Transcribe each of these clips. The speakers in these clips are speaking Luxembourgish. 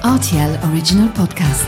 Rtl Original Podcast.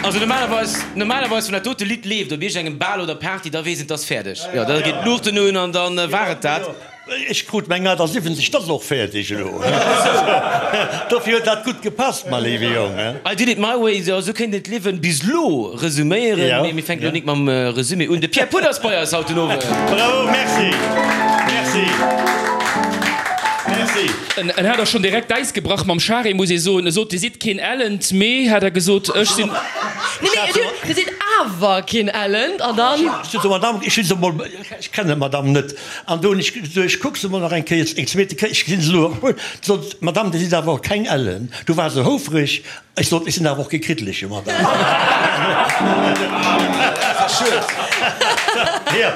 Also normalerweis, normalerweis wann dat dote Lidd leeft op iergendengem Bal oder Party, da weess een, 't ass fäerdeg. Jo, da geet d'Luuchten un an dann war et dat. Ech krut meng 78, 't ass och fäerdeg elo. Dofir huet dat gutt gepasst, ma léiwe Jong. I did it my way, jo, esou kéint een d'Liewen bis elo resuméieren. Mee mir fänken elo nik mam Resumé un. De Pierre Puth ass bei eis haut den Owend. Bravo, merci, merci, merci. En hat och schonn direkt d'Äis gebrach mam Charel, muss ee soen. E sot, Dir sidd keen Ellent, mee, hat er gesot, ech sinn. Nee, nee, Dir sidd awer keen Ellent, an dann. Ech sot, Madame, ech hunn se emol, ech kennen d'Madame net. An do hunn ech gesot, ech kuck se emol nach eng Kéier, eng zweete Kéier, ech gesinn se elo och. Sot d'Madame, Dir sidd awer och keng Ellen. Du war se houfreg. Ech sot, Ech sinn awer och kee Kriddeleche, Madame.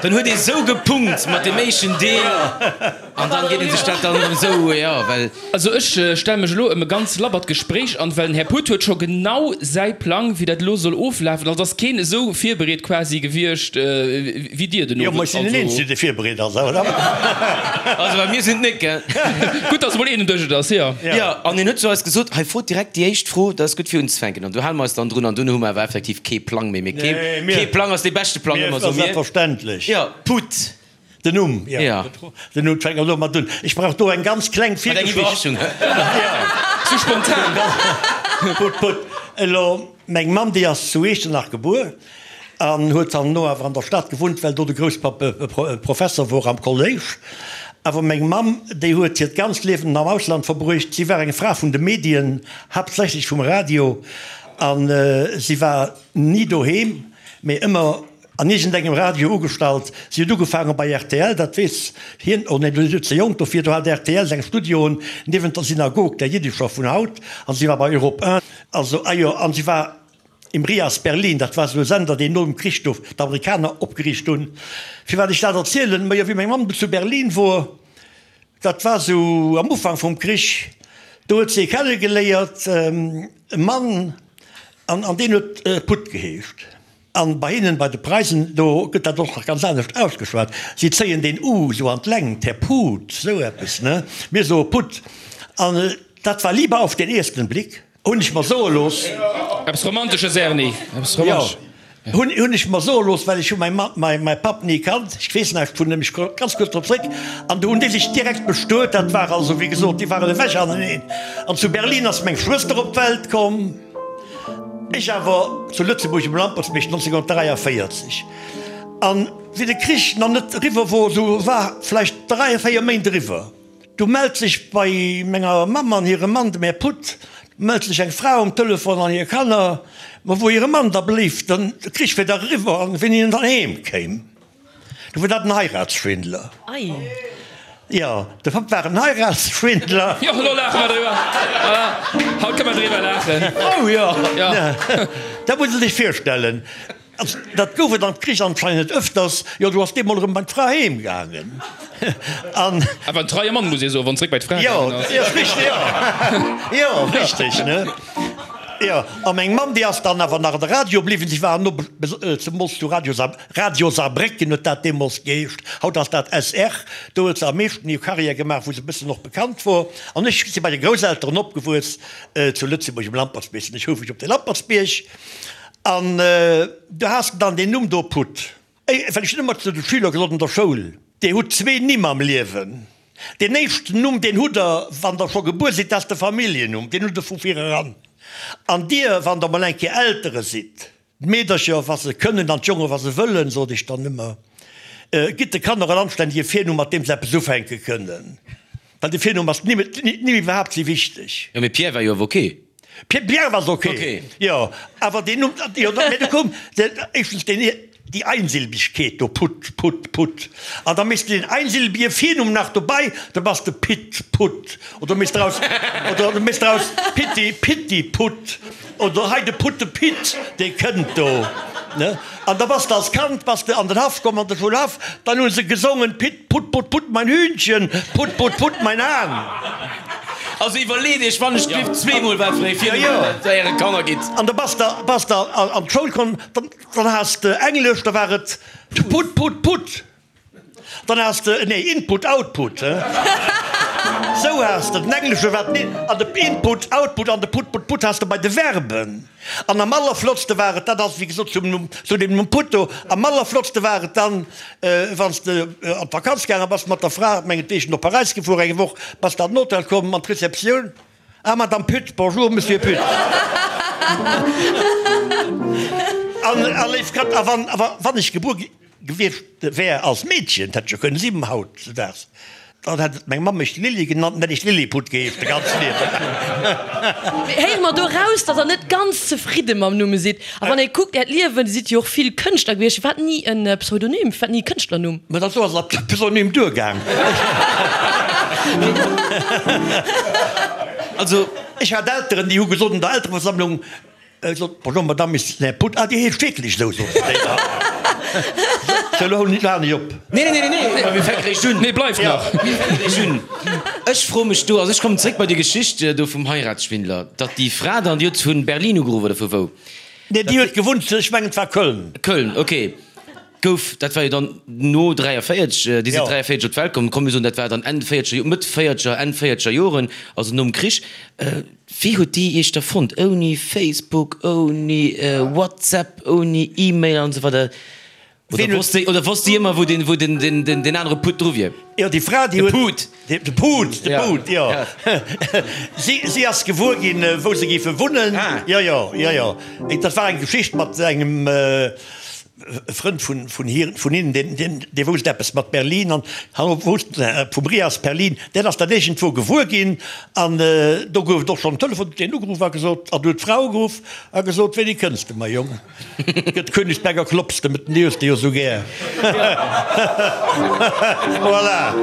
Dann huet ee sou gepunkt mat deem éischten Deel an dann geet ee sech dat dann erëm sou, jo, well. Also ech stelle mech elo ëm e ganz labbert Gespréich an, well den Här Puth huet scho genau säi Plang, wéi dat elo soll oflafen. Also ass keen esou virbereet quasi gewiescht wéi Dir den Jo, ma ech sinn den Owend. Eenzegen, dee virbereet ass, oder? Also well mir sinn et net, gell? Gutt, dass emol een un Dësch et ass, jo. Jo, an hien huet zu eis gesot, hei frot direkt déi éischt Fro, dat ass gutt fir unzefänken. An do hale mer eis dann drun an dunn hu mer awer effektiv kee Plang méi. Mee kee Plang ass dee beschte Plang ëmmer, soe mir. Selbstverständlech. Jo, Puth. Den Numm, jo. Ja. Den Numm, fänke mer elo mat un. Ech brauch do eng ganz kleng Mat eng Virgeschicht. Iwwerraschung, hä? Ja. Sou spontan. Gutt, gutt. Elo, meng Mamm, déi ass zu Iechternach gebuer an huet dann no awer an der Stad gewunnt, well do de Grousspapp Professer wor am Kolléisch. Awer meng Mamm, déi huet hiert ganzt Liewen am Ausland verbruecht. Si war eng Fra vun de Medien, haaptsächlech vum Radio, a si war ni doheem, mee ëmmer An iergendengem Radio ugestallt. Si huet ugefaange bei rtl, dat weess hien, oh nee, du sidd ze jonk dofir, do hat rtl seng Studioen niewent der Synagog, der jiddescher vun haut, an si war bei Europe 1, also, ah jo, an si war im Rias Berlin, dat war esou e Sender, deen nom Krich do d'Amerikaner opgeriicht hunn. Firwat ech dat erzielen? Majo, wéi meng Mamm du zu Berlin wor, dat war esou am Ufank vum Krich, do huet si ee kennegeléiert, e Mann, an deen huet Putt geheescht. An bei hinnen, bei de Preisen, do gëtt dat och nach ganz anescht ausgeschwat. Si zéien deen u sou an d'Längt, Här Put, sou eppes, ne? Mir soe Putt. An dat war Liebe auf den ersten Blick, hunn ech mer soe looss. Eppes Romantesches, Erni, eppes Romantesches. Jo, hunn, hunn ech mer soe looss, well ech hu mäi Mann, mäi, mäi Papp ni kannt. Ech weess näischt vun him, ech komme ganz kuerz drop zréck. An do hunn déi sech direkt bestuet. Dat war also, wéi gesot, déi waren ewech aneneen. An zu Berlin ass meng Schwëster op d'Welt komm. Ech awer zu Lëtzebuerg um Lampertsbierg 1943. An wéi de Krich nach net eriwwer wor, sou war vläicht 3, 4 Méint eriwwer, du mellt sech bei menger Mamm an hirem Mann, dem Här Puth, mellt sech eng Fra um Telefon an hir Kanner, ma wou hire Mann da bléif, den Krich wier dach eriwwer an wéini en dann heem kéim. Du war dat en Heiratsschwindler. Ei. Jo, de Papp war en Heiratsschwindler. Jo, elo laache mer driwwer. Voilà, haut kënne mer driwwer laachen. Oh jo, dat muss e sech virstellen. Also, dat gouf et am Krich anscheinend ëfters. Jo, du ass deemol erëm bei d'Fra heem gaangen. An. Awer en treie Mann, muss ee soen, wann en zréck bei d'Fra gaangen ass. Jo, richteg, jo. Jo, richteg, ne? Jo, a meng Mamm, déi ass dann awer nach an de Radio bliwwen. Si war no, zemools zu Radio Saarbrécken. Radio Saarbrécken huet dat deemools geheescht, haut ass dat SR. Do huet se am meeschten hir Karriär gemaach, wou se e bëssen och bekannt wor. An ech si bei de Grousselteren opgewuess zu Lëtzebuerg um Lampertsbierg. Sinn ech houfreg op de Lampertsbierg. An du has dann deen Numm do Putt. Well ech hunn ëmmer zu de Schüler gesot an der Schoul, Dir hutt zwee Nimm am Liewen. Deen éischten Numm, deen hutt Der, wann Der scho gebuer sidd, dat ass de Familljennumm, deen hutt Der vu vireran. An Dir, wann Der mol eng Kéier Eltere sidd, D'Meedercher, wa se kënnen, an d'Jongen, wa se wëllen, sot ech dann ëmmer, gitt de Kanner en anstännege Virnumm, mat deem se eppes ufänke kënnen, well de Virnumm ass d'Nimm iwwerhaapt si wichteg. Jo, mee Pierre war jo awer ok. Pierre ass ok, jo, awer deen Numm, jo, mee du koum éischtens deen. Déi Einsilbigkeet do, Put, Put, Put. An da méchs de den einsilbige Virnumm nach dobei, da bass de Pit, Put. Oder méchs draus, oder méchs draus Pitti, Pitti, Put. Oder hei de Putte Pit, dee kënnt do, ne? An da bass de als Kand bass de an den Haff komm, an de Schoulhaff, dann hu se gesongen, Pit, Put, Put, Put, mein Hühnchen, Put, Put, Put, mein Hahn. Also iwwerleet iech wann ech d'Lift zweemol wat fir ee Virnumm der äre Kanner gitt. An da bass de, bass de an d'Schoul komm, dann. Dann has de Englesch, da war et Put, put, put. Dann has de, nee, Input, Output, he? Sou has de den Englesche war den an de Input, Output an de Put, put, put has de bei de Verben. An am allerflottste war et, dat ass wéi gesot zum Numm, zu deem Numm Put do, am allerflottste war et dann, wann s de an d'Vakanz gaange bass mat der Fra, mengetwegen op Paräis gefuer eng Woch, bass de an den Hotel komm, an d'Receptioun, Ah, Madame Pütt, bonjour, Monsieur Pütt. An, a léif Kand, a wann, a wann ech gebuer gewiescht wär als Meedchen, dat hätt ech jo kënnen sinn hautzedaags, dann hätt meng Mamm mech Lilli genannt, dann hätt ech Lilliput geheescht de ganze Liewen. Mee héiere mer do raus, datt Der net ganz zefridde mam Numm sidd? A wann ee kuckt Äert Liewen, Dir sidd jo och vill Kënschtler gewiescht, firwat ni e Pseudonym, firwat ni e Kënschtlernumm? Mä dat do ass als Pseudonym duergaang. Also. Ech hat Elteren, déi hu gesot an der Eltereversammlung, gesot, Bonjour Madame, ist den Här Put, ah, Dir heescht wierklech esou, soten se déi da. Sou, elo halen ech op. Nee, nee, nee, nee, mä mir fänke réischt un. Nee, bleift nach. Mir fänke réischt un. Ech froe mech do, also ech kommen zréck bei déi Geschicht do vum Heiratsschwindler, datt déi Fra dann, déi huet vu Berlin ugeruff oder vu wou? Nee, déi huet gewunnt, ech mengen et war Köln. Köln, ok. Gouf, dat war jo dann no 43, déi sinn 43 op d'Welt komm, komm mir soen dat war dann Enn véierzeger, Mëtt véierzeger, Enn véierzeger Joren, also nom Krich. Wéi huet déi Iech da fonnt? Ouni Facebook, ouni WhatsApp, ouni E-Mail an esou weider? Oder wosst déi, oder wosst déi ëmmer wou den, wou den, den, den, den anere Putt dru wier? Jo, déi Fra, déi De huet. Put. De Put, de Put, jo. Si, si ass gewuer ginn, wou se géife wunnen. Ah. Jo, jo, jo, jo. Dat war eng Geschicht mat engem Frënd vun, vun hir, vun hinnen, deen, deen, dee wousst eppes mat Berlin an han wousst vum Rias Berlin. Deen ass dat iergendwou gewuer ginn an do gouf et och schonn en Telefon, huet deen ugeruff a gesot, an huet d'Fra ugeruff a gesot, Wéini kënns de, mäi Jong? Gëtt Königsberger Klops, de den hues de jo sou gär. Voilà.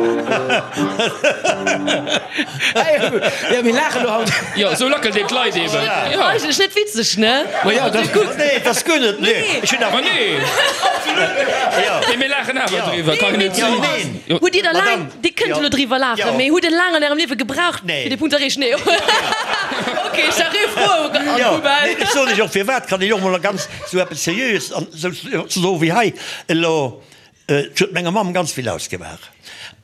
Jo, mir laachen elo haut. Jo, sou lackelt een d'Leit eben. Jo. Eigentlech net witzeg, ne? Ma jo, dat ass gutt. Nee, dat ass guer net. Nee, ech hunn Ma awer. nee. Absolut net. Jo. Mee mir laachen awer Jo. driwwer, kann net Jo, sinn. neen. Jo. Hutt Dir da laang, Madame. Dir kënnt Jo. elo driwwer laachen, Jo. mee hutt Der laang an Ärem Liewe gebraucht, Nee. fir dee Punkt ze erreechen? Nee. Ok, ech war ree froh an Jo, d'Poubelle. nee, ech soen lech och firwat, kann ech och mol ganz sou eppes Seriöes an sou soe wéi hei elo, Et huet menger Mamm ganz vill ausgemaach.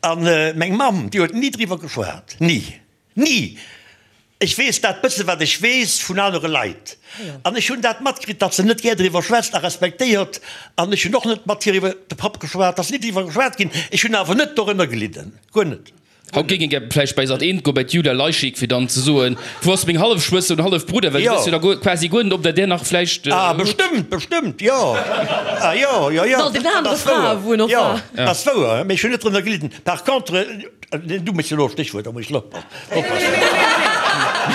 An meng Mamm, déi huet ni driwwer geschwat, ni, ni! Ech weess dat bësse wat ech weess vun anere Leit. An ech hunn dat matkritt, datt se net gär driwwer schwätzt a respektéiert. An ech hunn och net mat hir iwwer de Papp geschwat, ass ni driwwer geschwat ginn. Ech hunn awer net dorënner gelidden, guer net. Haut géing een gär vläicht bei Sat 1 goen, bei d'Julia Leischik, fir dann ze soen, Wou ass meng Hallefschwëster oder Hallefbrudder? Well du wëss jo da guer, quasi guer net, ob der där nach vläicht Ah, hutt. bestëmmt, bestëmmt, jo. Ah, jo, jo, jo. An den anere Frae, wou en och Jo, war. dat ass wouer, mee ech hunn net drënner gelidden. Par contre, du méchs elo e Stéchwuert, da muss ech elo oppassen.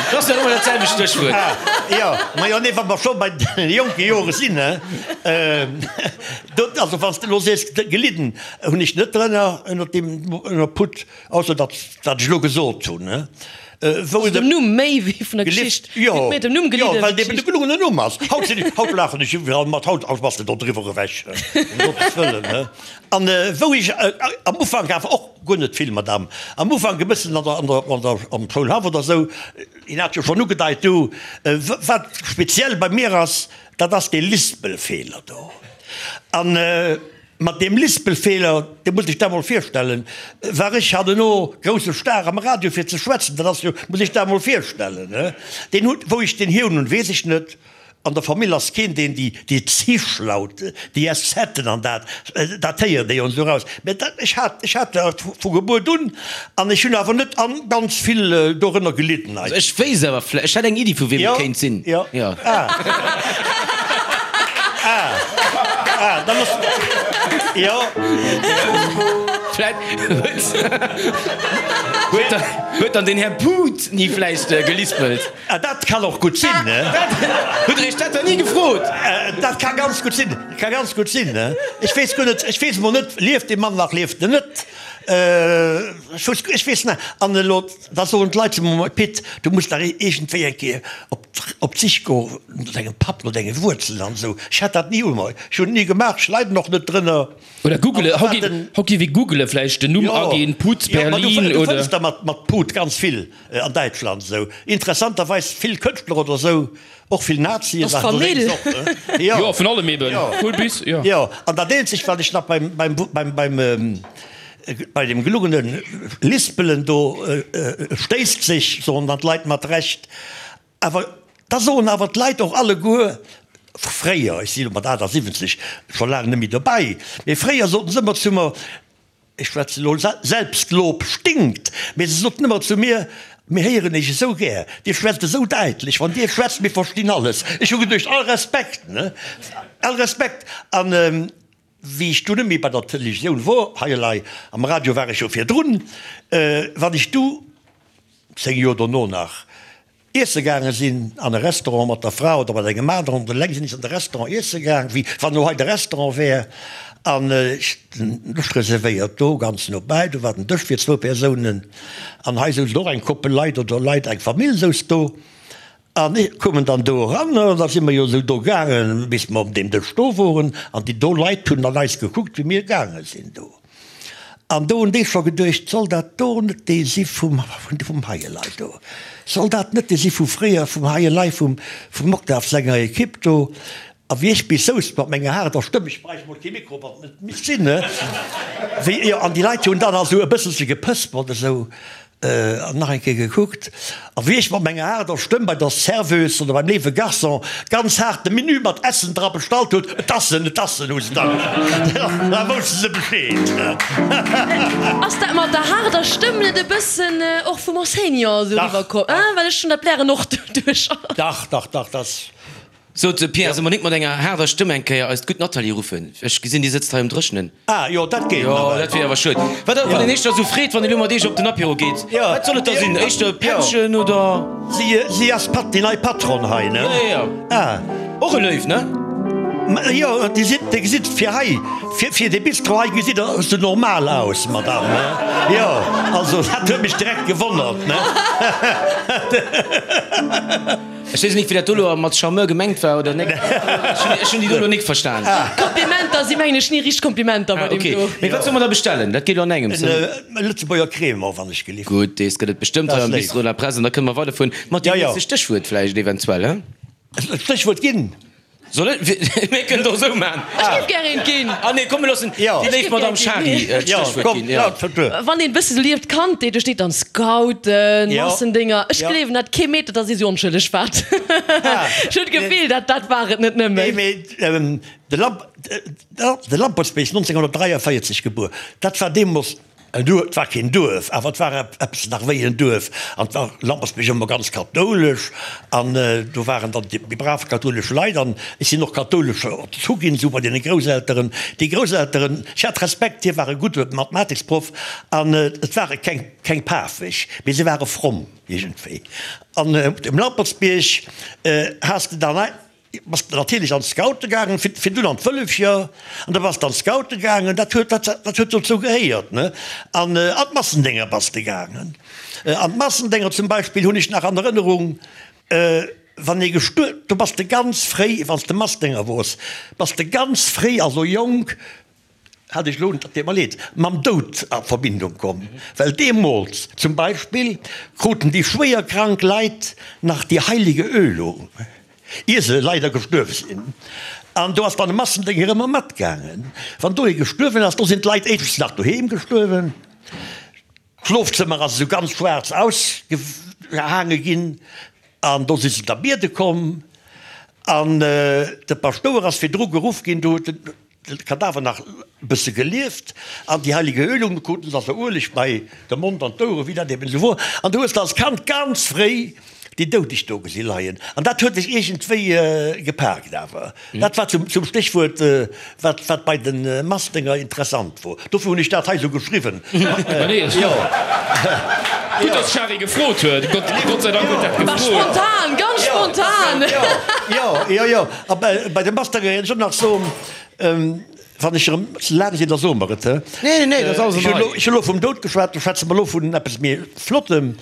Dat ass jo ëmmer dat selwecht Stéchwuert. Ah, jo, ma jo, nee, wa mer scho bei de jonke Jore sinn, hè, do, also wann s de elo sees gelidden, Hunn ech net drënner ënner deem ënner Put, ausser dat wat ech elo gesot hunn, wou Also dem Numm méi wéi vun der Geschicht. Jo, Huet méi dem Numm jo, gelidden well wéi dee de d'Geschicht. gelungenen Numm ass. Haut sinn ech, haut laachen ech iwwerall mat, haut haut bass de do driwwer ewech, ëm Gottes Wëllen, he. An wou ech am Ufank awer och guer net vill, Madame, am Ufank e bëssen an der an der an der am Schoulhaff oder esou, hien hat jo schonn ugedeit do, wat speziell bei mir ass, dat ass dee Lispelfeeler do. An Mat deem Lispelfeeler, dir musst iech dat mol virstellen, war ech hanneno grousse Star am Radio fir ze schwätzen, dat ass jo, musst iech dat mol virstellen, he. Deen huet, wou ech deen hier hunn, weess ech net. An der Famill ass keen, deen déi, déi Zischlaute, déi Eszeten an dat, dat héiert ee jo esou raus. Mä dat, ech hat, ech hat dat vu Gebuert un an ech hunn awer net an ganz vill dorënner gelidden Also ech wéisst awer vläicht, ech hätt eng Iddi vu wiem et kéint sinn. Jo, jo. Ah. Ah. Ah, da muss, jo. Vläicht huet, huet dann den Här Put ni vläicht gelispelt. Ah, dat kann och gutt sinn, ne? Hutt Der Iech dat dann ni gefrot? Dat ka ganz gutt sinn, ka ganz gutt sinn, ne? Ech weess guer net, ech weess emol net, lieft dee Mann nach, lieft en net? Ech weess, ech weess net. An elo, da soen d'Leit zu mer, Pit, du muss dach iergendwéi eng Kéier op, op d'Sich goen no dengem Papp, no denge Wuerzelen an esou. Ech hat dat ni u mer, ech hunn et ni gemaach, ech leiden och net drënner. Oder googele, haut géif, haut géif ee googele vläicht den Numm aginn, Put Berlin oder. Du fënns der mat, mat Put ganz vill an Däitschland esou. Interessanterweis vill Kënschtler oder esou. Och vill Nazien waren do deemools och, ne? Jo. Jo, vun allem eben. Vun bis, jo. Jo, an dat eenzegt, wat ech nach beim, beim, beim, beim, bei dem gelungene Lispelen do stéisst sech, soen dann d'Leit mat Recht, awer da soen awer d'Leit och alleguer, fréier, ech si lo mat 78 scho laang net méi dobäi, mee fréier soten se ëmmer zu mer, Ech schwätzen elo, Selbstlob stinkt, mee se soten ëmmer zu mir, Mir héieren Iech esou gär, Dir schwätzt esou däitlech, wann Dir schwätzt, mir verstinn alles. Ech hu geduecht, All Respekt, ne, all Respekt. An wéi ech du net méi bei der Televisioun wor, hei elei am Radio war ech jo virdrun, wann ech du 10 Joer dono nach Iesse gaange sinn an e Restaurant mat der Fra oder mat engem aneren oder eleng sinn ech an de Restaurant iesse gaang, wéi wann elo hei de Restaurant wär an ech den Dësch reservéiert do ganz no bäi, do war den Dësch fir zwou Persounen an hei souzen och eng Koppel Leit oder Leit, eng Famill souz do an ech koumen dann do eran an da si mer jo esou do gaangen, bis mer op deem Dësch do woren an déi do Leit hunn an eis gekuckt, wéi mir gaange sinn do. An do hunn déi scho geduecht, Soll dat do net dee si vum, vum Heielei do? Soll dat net dee si vu fréier, vum Heielei, vum, vum Octave senger Ekipp do? A wéi ech bis souz mat menger haarder Stëmm, ech bräicht mol kee Mikro, wann et net misst sinn, ne? Wéi, jo, an déi Leit hunn dann also e bësselche gepëspert esou. An nach eng Kéier gekuckt, a wéi ech mat menger haarder Stëmm bei der Serveuse oder beim léiwe Garçon ganz haart de Menü mat Ässen dra bestallt huet, Et ass en, et ass en, hu se da gesot, da wousste se Bescheed. Ass dat mat der haarder Stëmm net e bëssen och vum Enseignant esou eriwwer komm? Well ech hunn dat blären och doduerch. Dach, dach, dach, dat. Sot de Pierre, solle mer nik mat enger haarder Stëmm eng Kéier eist gutt Nathalie ruffen? Ech gesinn, déi sëtzt hei um Dréchnen. Ah jo, dat geet Jo, nawell. dat wier awer schued. Wat, wann een éischter esou freet, wann een elo mat Iech op den Apéro geet, Jo. wat soll et da sinn? Éischter e Pättchen oder? Si, si ass Pat, déi nei Patronne hei, ne? Jo, jo, jo. Ah. Och e Léiw, ne? Ma jo, Dir sidd, Dir gesitt fir hei, fir, fir dee Bistro hei gesitt Der esou normal aus, Madame, ne? Jo, also dat huet mech direkt gewonnert, ne? Ech weess nik wéi dat do lo mat Charmeur gemengt war oder nek. Ech hunn déi do lo nik verstan. Komplimenter si mengen ech ni richteg Komplimenter bei deem do. Mee wat solle mer da bestellen? Dat geet lo an engems. En Lëtzebuerger Crémant wann ech gelift. Gutt, dees gëtt et bestëmmt hei am Bistro de la Presse an da kënne mer weiderfueren mat deem nächste Stéchwuert vläicht eventuell, he? Stéchwuert ginn? Soll ech? Mir kënnen et och esou maachen. Ech géif gär eent ginn. Ah nee, komm mir loossen déi léif Madame Schary d'Stéchwuert ginn. Jo. Wann een e bësse sou lieft, Kandheet, do steet dann Scouten, Massendinger. Ech gleewen dat kee Meter, dass ee sou onschëlleg waart. Ech hunn d'Gefill, dat dat war et net nëmmen. Nee, mee de Lamp, de Lampertsbierg, 1943 gebuer, dat war deemools En Duerf, et war keen Duerf, awer et war eppes nach wéi en Duerf. An et war Lampersbierg ëmmer ganz kathoulesch an do waren dann déi brav kathoulesch Leit an ech sinn och kathoulesch erzu ginn, esou bei deene Grousselteren. Déi Grousselteren, ech hat Respekt, hie war e gudde Mathematiksproff an et ware keng, keng pafeg, mee se ware fromm iergendwéi. An op dem Lampertsbierg has de dann. Bass de natierlech an d'Scoute gaangen, fir dunn an d'Wëllefcher, an da bass de an d'Scoute gaangen, dat huet, dat, dat huet dozou gehéiert, ne? An an d'Massendénger bass de gaangen. An d'Massendénger zum Beispill hunn ech nach an Erënnerung, wann ee gestuer, do bass de ganz fréi, wann s de Massdénger wors, bass de ganz fréi, also jonk, hat ech elo, dat deet mer leed, mam Doud a Verbindung komm, well deemools zum Beispill kruten déi schwéier krank Leit nach déi heilige Ölung, ier se leider gestuerwe sinn. An do ass dann e Massendénger ëmmer matgaangen. Wann do ee gestuerwen ass, do sinn d'Leit éischtens nach doheem gestuerwen, d'Schlofzëmmer ass esou ganz schwaarz ausgehaange ginn an do si se da biede komm an de Paschtouer ass virdru geruff ginn, do huet en De Kadaver nach e bësse gelieft an déi heilige Ölung, du kruten se also Ueleg bei de Mond an d'Oueren, wéi dat eben esou wor. An du hues de als Kand ganz fréi déi Doudeg do gesi leien. An dat huet dech iergendwéi gepaakt awer. Dat war zum Stéchwuert, wat, wat bei de Massdénger interessant wor. Dofir hunn ech dat hei esou geschriwwen. Jo. Gutt, dass d'Shari gefrot huet. Gott, Gott sei Dank huet dat War gefrot. spontan, ganz spontan. Jo, jo, jo. A bei de Massdénger ech och nach soen, wann ech erëm ze laang sinn, da soe mer et, he? Nee, nee, dat ass alles an der Rei. Ech hu lo vum Doud geschwat, da schwätze mer elo vun eppes méi Flottem.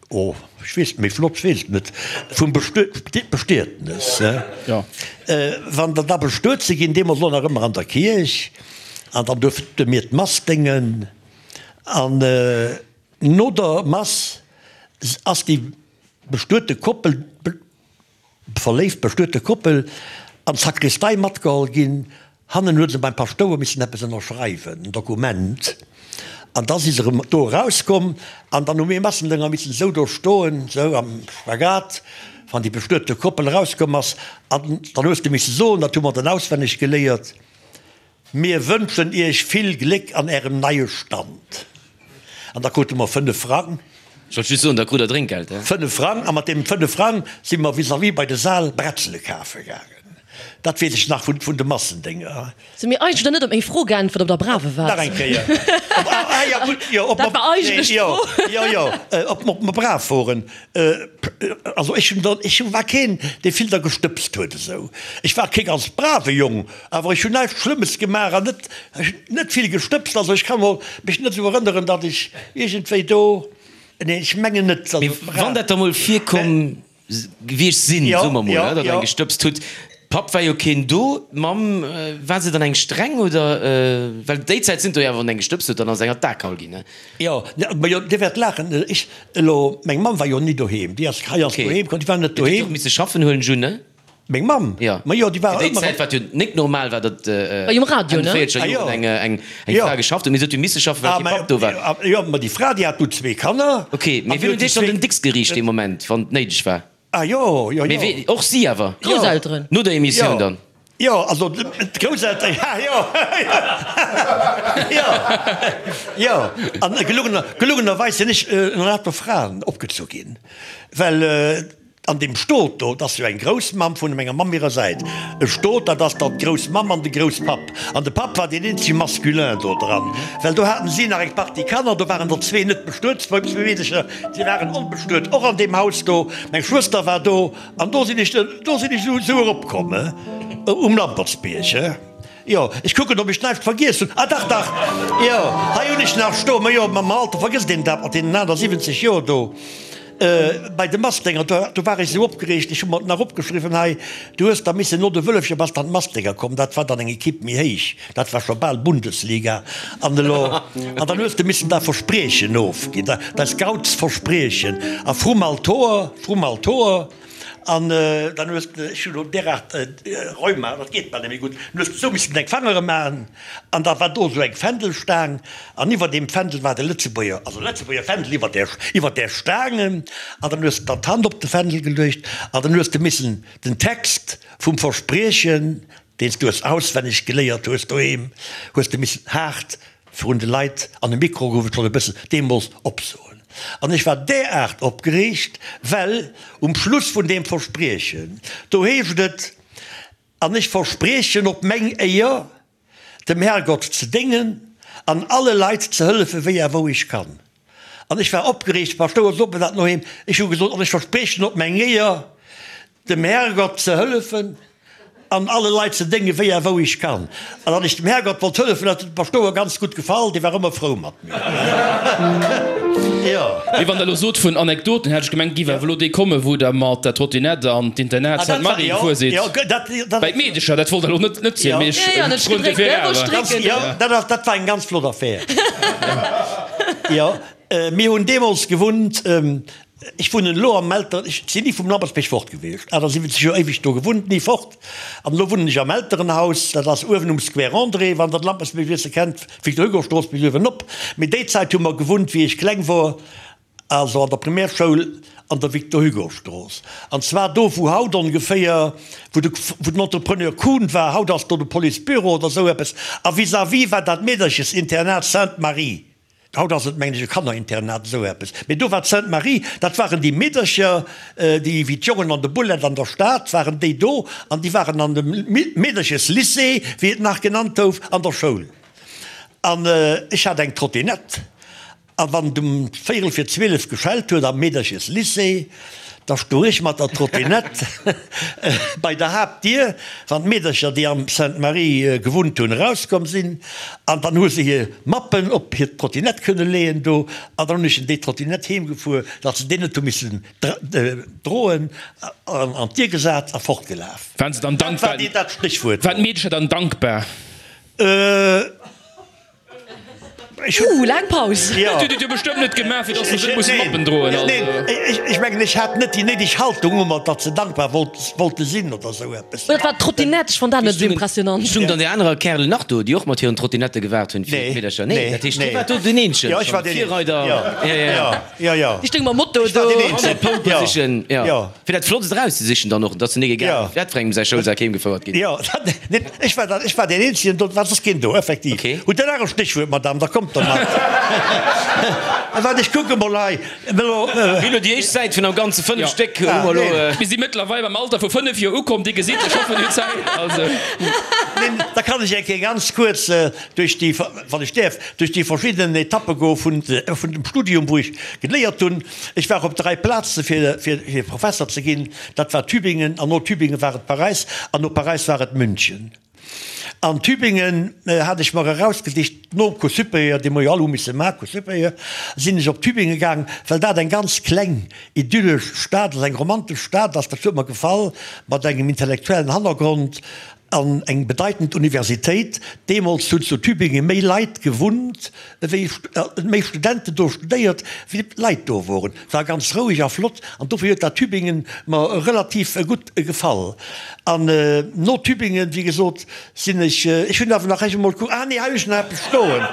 Oh, ech weess, méi flott, ech weess et net, vum Bestietnes, he? Wann der da bestuet si ginn, deemools elo nach ëmmer an der Kierch, an dann duerfte mir d'Mass déngen, an no der Mass ass déi bestuete Koppel, Verléift bestuete Koppel an d'Sakristei matgeholl ginn. Hannen huet se beim Paschtouer missen eppes ënnerschreiwen, en Dokument, an da si se erëm do erauskomm. An dann hu mir Massendënger missen esou do stoen, esou am Spagat, wann déi bestuete Koppel erauskomm ass. An dann hues de misse soen, dat hu mer dann auswenneg geléiert, Mir wënschen iech vill Gléck an ärem neie Stand. An da krute mer 5 Frang. Ech wollt just soen, da krut der Drénkgeld, he? 5 Frang, a mat deem 5 Frang si mer vis-à-vis bei de Sal Bretzele kafe gaangen. Dat weess ech nach vun de Massendénger. Se mir eigentlech net op meng Fro geäntwert, ob der brave waart. Nach eng Kéier. Ah jo, gutt, jo, ob Dat war eigentlech d'Fro. Jo, jo, ob mer brav woren. Also ech hunn der, ech war keen, dee vill der gestëbst huet esou. Ech war kee ganz brave Jong, awer ech hunn näischt Schlëmmes gemaach an net, ech hunn net vill gestëbst. Also ech ka mer mech net esou erënneren, datt ech iergendwéi do, nee ech mengen net. Mee wann dat da mol virkomm gewiescht sinn, soe mer mol, datt Der eng gestëbst hutt, Papp war jo keen do, d'Mamm, war se dann eng streng oder, well déi Zäit sinn do jo awer, wann eng gestëbst huet, dann ass eng an d'A geholl ginn, ne? Jo, ma jo, Dir wäert laachen, ech elo, meng Mamm war jo ni doheem, déi ass hei ass doheem komm, déi war net doheem. Déi huet och misse schaffen, huelen ech un, ne? Meng Mamm? Jo. Ma jo, déi war ëmmer. Fir déi Zäit, wat jo nik normal war, datt Enn de véierzeger Joren eng Fra geschafft huet, mee se huet jo misse schaffen, well kee Papp do war. Jo, ma déi Fra, déi hat du zwee Kanner. Ok, mee wien huet Iech dann den Dicks geriicht dee Moment, wann et néideg war? Ah jo, jo, jo. Mee wee, och si awer? Grousselteren. No der Emissioun dann? Jo, also d'Grousselteren, ja, jo, jo, jo. An gelungener, gelungenerweis sinn ech ënner lauter Fraen opgezu ginn, well an deem Stot do, dat ass jo eng Groussmamm vun menger Mamm hirer Säit, e Stot, dat ass dann d'Groussmamm an de Grousspapp. An de Papp war deen eenzege Masculin do dran, well do haten si nach eng Partie Kanner, do waren der zwee net bestuet, zwou Meedecher, si waren onbestuet, och an deem Haus do. Meng Schwëster war do an do sinn ech, do sinn ech esou eropkomm, um Lampertsbierg. Jo, ech kucken, ob ech näischt vergiess hunn. Ah dach, dach, jo, hei hunn ech nach stoen. Ma jo, mam Alter vergësst een dat mat deenen 78 Joer do. Bei de Mastdénger, do, do war ech esou opgereegt, ech hu mer et nach opgeschriwwen hei, du hues da missen no de Wëllefcher bass dann d'Mastdénger komm, dat war dann eng Equipe méi héich, dat war scho bal Bundesliga. An elo, an dann hues de missen da Verspriechen ofginn, da, däi Scoutsverspriechen a vrum Altoer, vrum Altoer. An dann hues de, ech hunn elo deraart Rheuma, dat geet bal net méi gutt, dann hues de esou missen deng Fangere maachen an da war do esou eng Fändelstaang an iwwer deem Fändel war de Lëtzebuerger, also Lëtzebuerger Fändel iwwer där, iwwer där Staang an dann hues de dann d'Hand op de Fändel geluecht an dann hues de missen den Text vum Verspriechen, deen s du hues auswenneg geléiert hues doheem, hues de missen haart Virun de Leit an de Mikro gouf et schonn e bëssen deemools opsoen. An ech war deraart opgereegt, well um Schluss vun deem Verspriechen, do heescht et, An ech verspriechen op meng Éier, dem Herrgott ze déngen an alle Leit ze hëllefen, wéi a wou ech kann. An ech war opgereegt, Paschtouer, sot mer dat noheem, ech hu gesot, An ech verspriechen op meng Éier, dem Herrgott ze hëllefen an alle Leit ze déngen, wéi a wou ech kann. An datt ech dem Herrgott wollt hëllefen, dat huet dem Paschtouer ganz gutt gefall, dee war ëmmer frou mat mir. Jo. Mee wann Der elo sot vun Anekdoten, hätt ech gemengt, giff awer elo déi kommen, wou Der mat der Trottinette an d'Internat Sainte-Marie gefuer sidd. Bäi d'Meedecher, dat wollt Der elo net net zielen, mee ech froen dofir awer. Jo, dat war eng ganz flott Affär. Jo, mir hunn deemools gewunnt, Ech wunnen elo am Elteren, ech sinn ni vum Lampertsbierg fort gewiescht, 78 Joer éiweg do gewunnt, ni fort. An elo wunnen ech am Elterenhaus, dat ass uewen um Square André, wann der de Lampertsbierg e bësse kennt, Victor-Hugo-Strooss bis uewen op. Mee déi Zäit hu mer gewunnt, wéi ech kleng wor, also an der Primärschoul an der Victor-Hugo-Strooss. An zwar do, wou haut ongeféier, wou de, wou den Entrepreneur Kuhn war, haut ass do de Policebüro oder esou eppes, a vis-à-vis war dat Meederchesinternat Sainte-Marie. Haut ass et, mengen ech, e Kannerinternat, esou eppes. Mee do war d'Sainte Marie, dat waren déi Meedercher, déi wéi d'Jongen an de Bullett an der Stad waren déi do, an déi waren an dem Meedercheslycée, wéi et nach genannt gouf, an der Schoul. An ech hat eng Trottinett. A wann et um véierel fir 12 geschellt huet am Meedercheslycée, da stoung ech mat der Trottinette bei der Haaptdier, wann d'Meedercher, déi am Sainte-Marie gewunnt hunn, erauskomm sinn. An dann hu se hir Mappen op hir Trottinette kënne leeën do. An dann hunn ech en déi Trottinette heemgefuer, datt se déi net hu missen droen, an an d'Dier gesat a fortgelaf. Waren se dann dankbar? Dat war dat Stéchwuert. Waren d'Meedercher dann dankbar? Ooh, laang Paus. Jo. Hutt Dir et jo bestëmmt net gemaach, fir dass se net musse Mappen droen. Also. Neen, ech mengen, ech hat net déi néideg Haltung ëmmer, datt se dankbar wollte sinn oder esou eppes. Oder et war d'Trottinette, ech fonnt dat net esou impressionant. Stungen dann déi anerer Kärelen nach do, déi och mat hiren Trottinette gewaart hunn fir d'Meedercher? Nee, dat heescht, Dir waart do den Eenzegen, Jo, ech war deen Eenzegen. Jo, jo, jo, jo. Déi stounge mam Moto do. Ech war deen Eenzegen. An der Pole Position, jo. Fir dat Flottst erauszesichen dann och, dass se net egal wat fir engem säi Schoulsak heemgefouert ginn. Jo, dat, Ech war, ech war deen Eenzegen do, et war soss keen do, effektiv. Okay. Hutt Der nach e Stéchwuert, Madame, da kommt der mat. Waart, ech kucke mol hei. Mir hunn elo déi éischt Säit vun am Ganze 5 Ja. Stéck hu mer elo. Mir si mëttlerweil beim Alter vu 5 Joer ukomm, Dir gesitt, ech hoffen, Dir hutt Zäit. Also. Neen, da kann ech eng Kéier ganz kuerz duerch déi, wann ech däerf, duerch déi verschidden Etappe goe vun, vun dem Studium, wou ech geléiert hunn. Ech war op 3 Plaze fir, fir, fir Professer ze ginn. Dat war Tübingen, an no Tübingen war et Paräis, an no Paräis war et München. An Tübingen hat ech mer erausgesicht, nom Cours supérieur, dee mer jo all hu misse maachen, Cours supérieur, sinn ech op Tübingen gaang, well dat eng ganz kleng, idyllesch Stad ass, eng romantesch Stad ass, dat huet mer gefall, mat engem intellektuellen Hannergrond. An eng bedeitend Universitéit. Deemools hunn zu Tübingen méi Leit gewunnt, ewéi, méi Studenten do studéiert, wéi Leit do woren. Et war ganz roueg a flott an dofir huet dat Tübingen mer relativ gutt gefall. An no Tübingen, wéi gesot, sinn ech, ech hunn awer nach ech emol kucken, ah nee, hei hunn ech nach eppes stoen,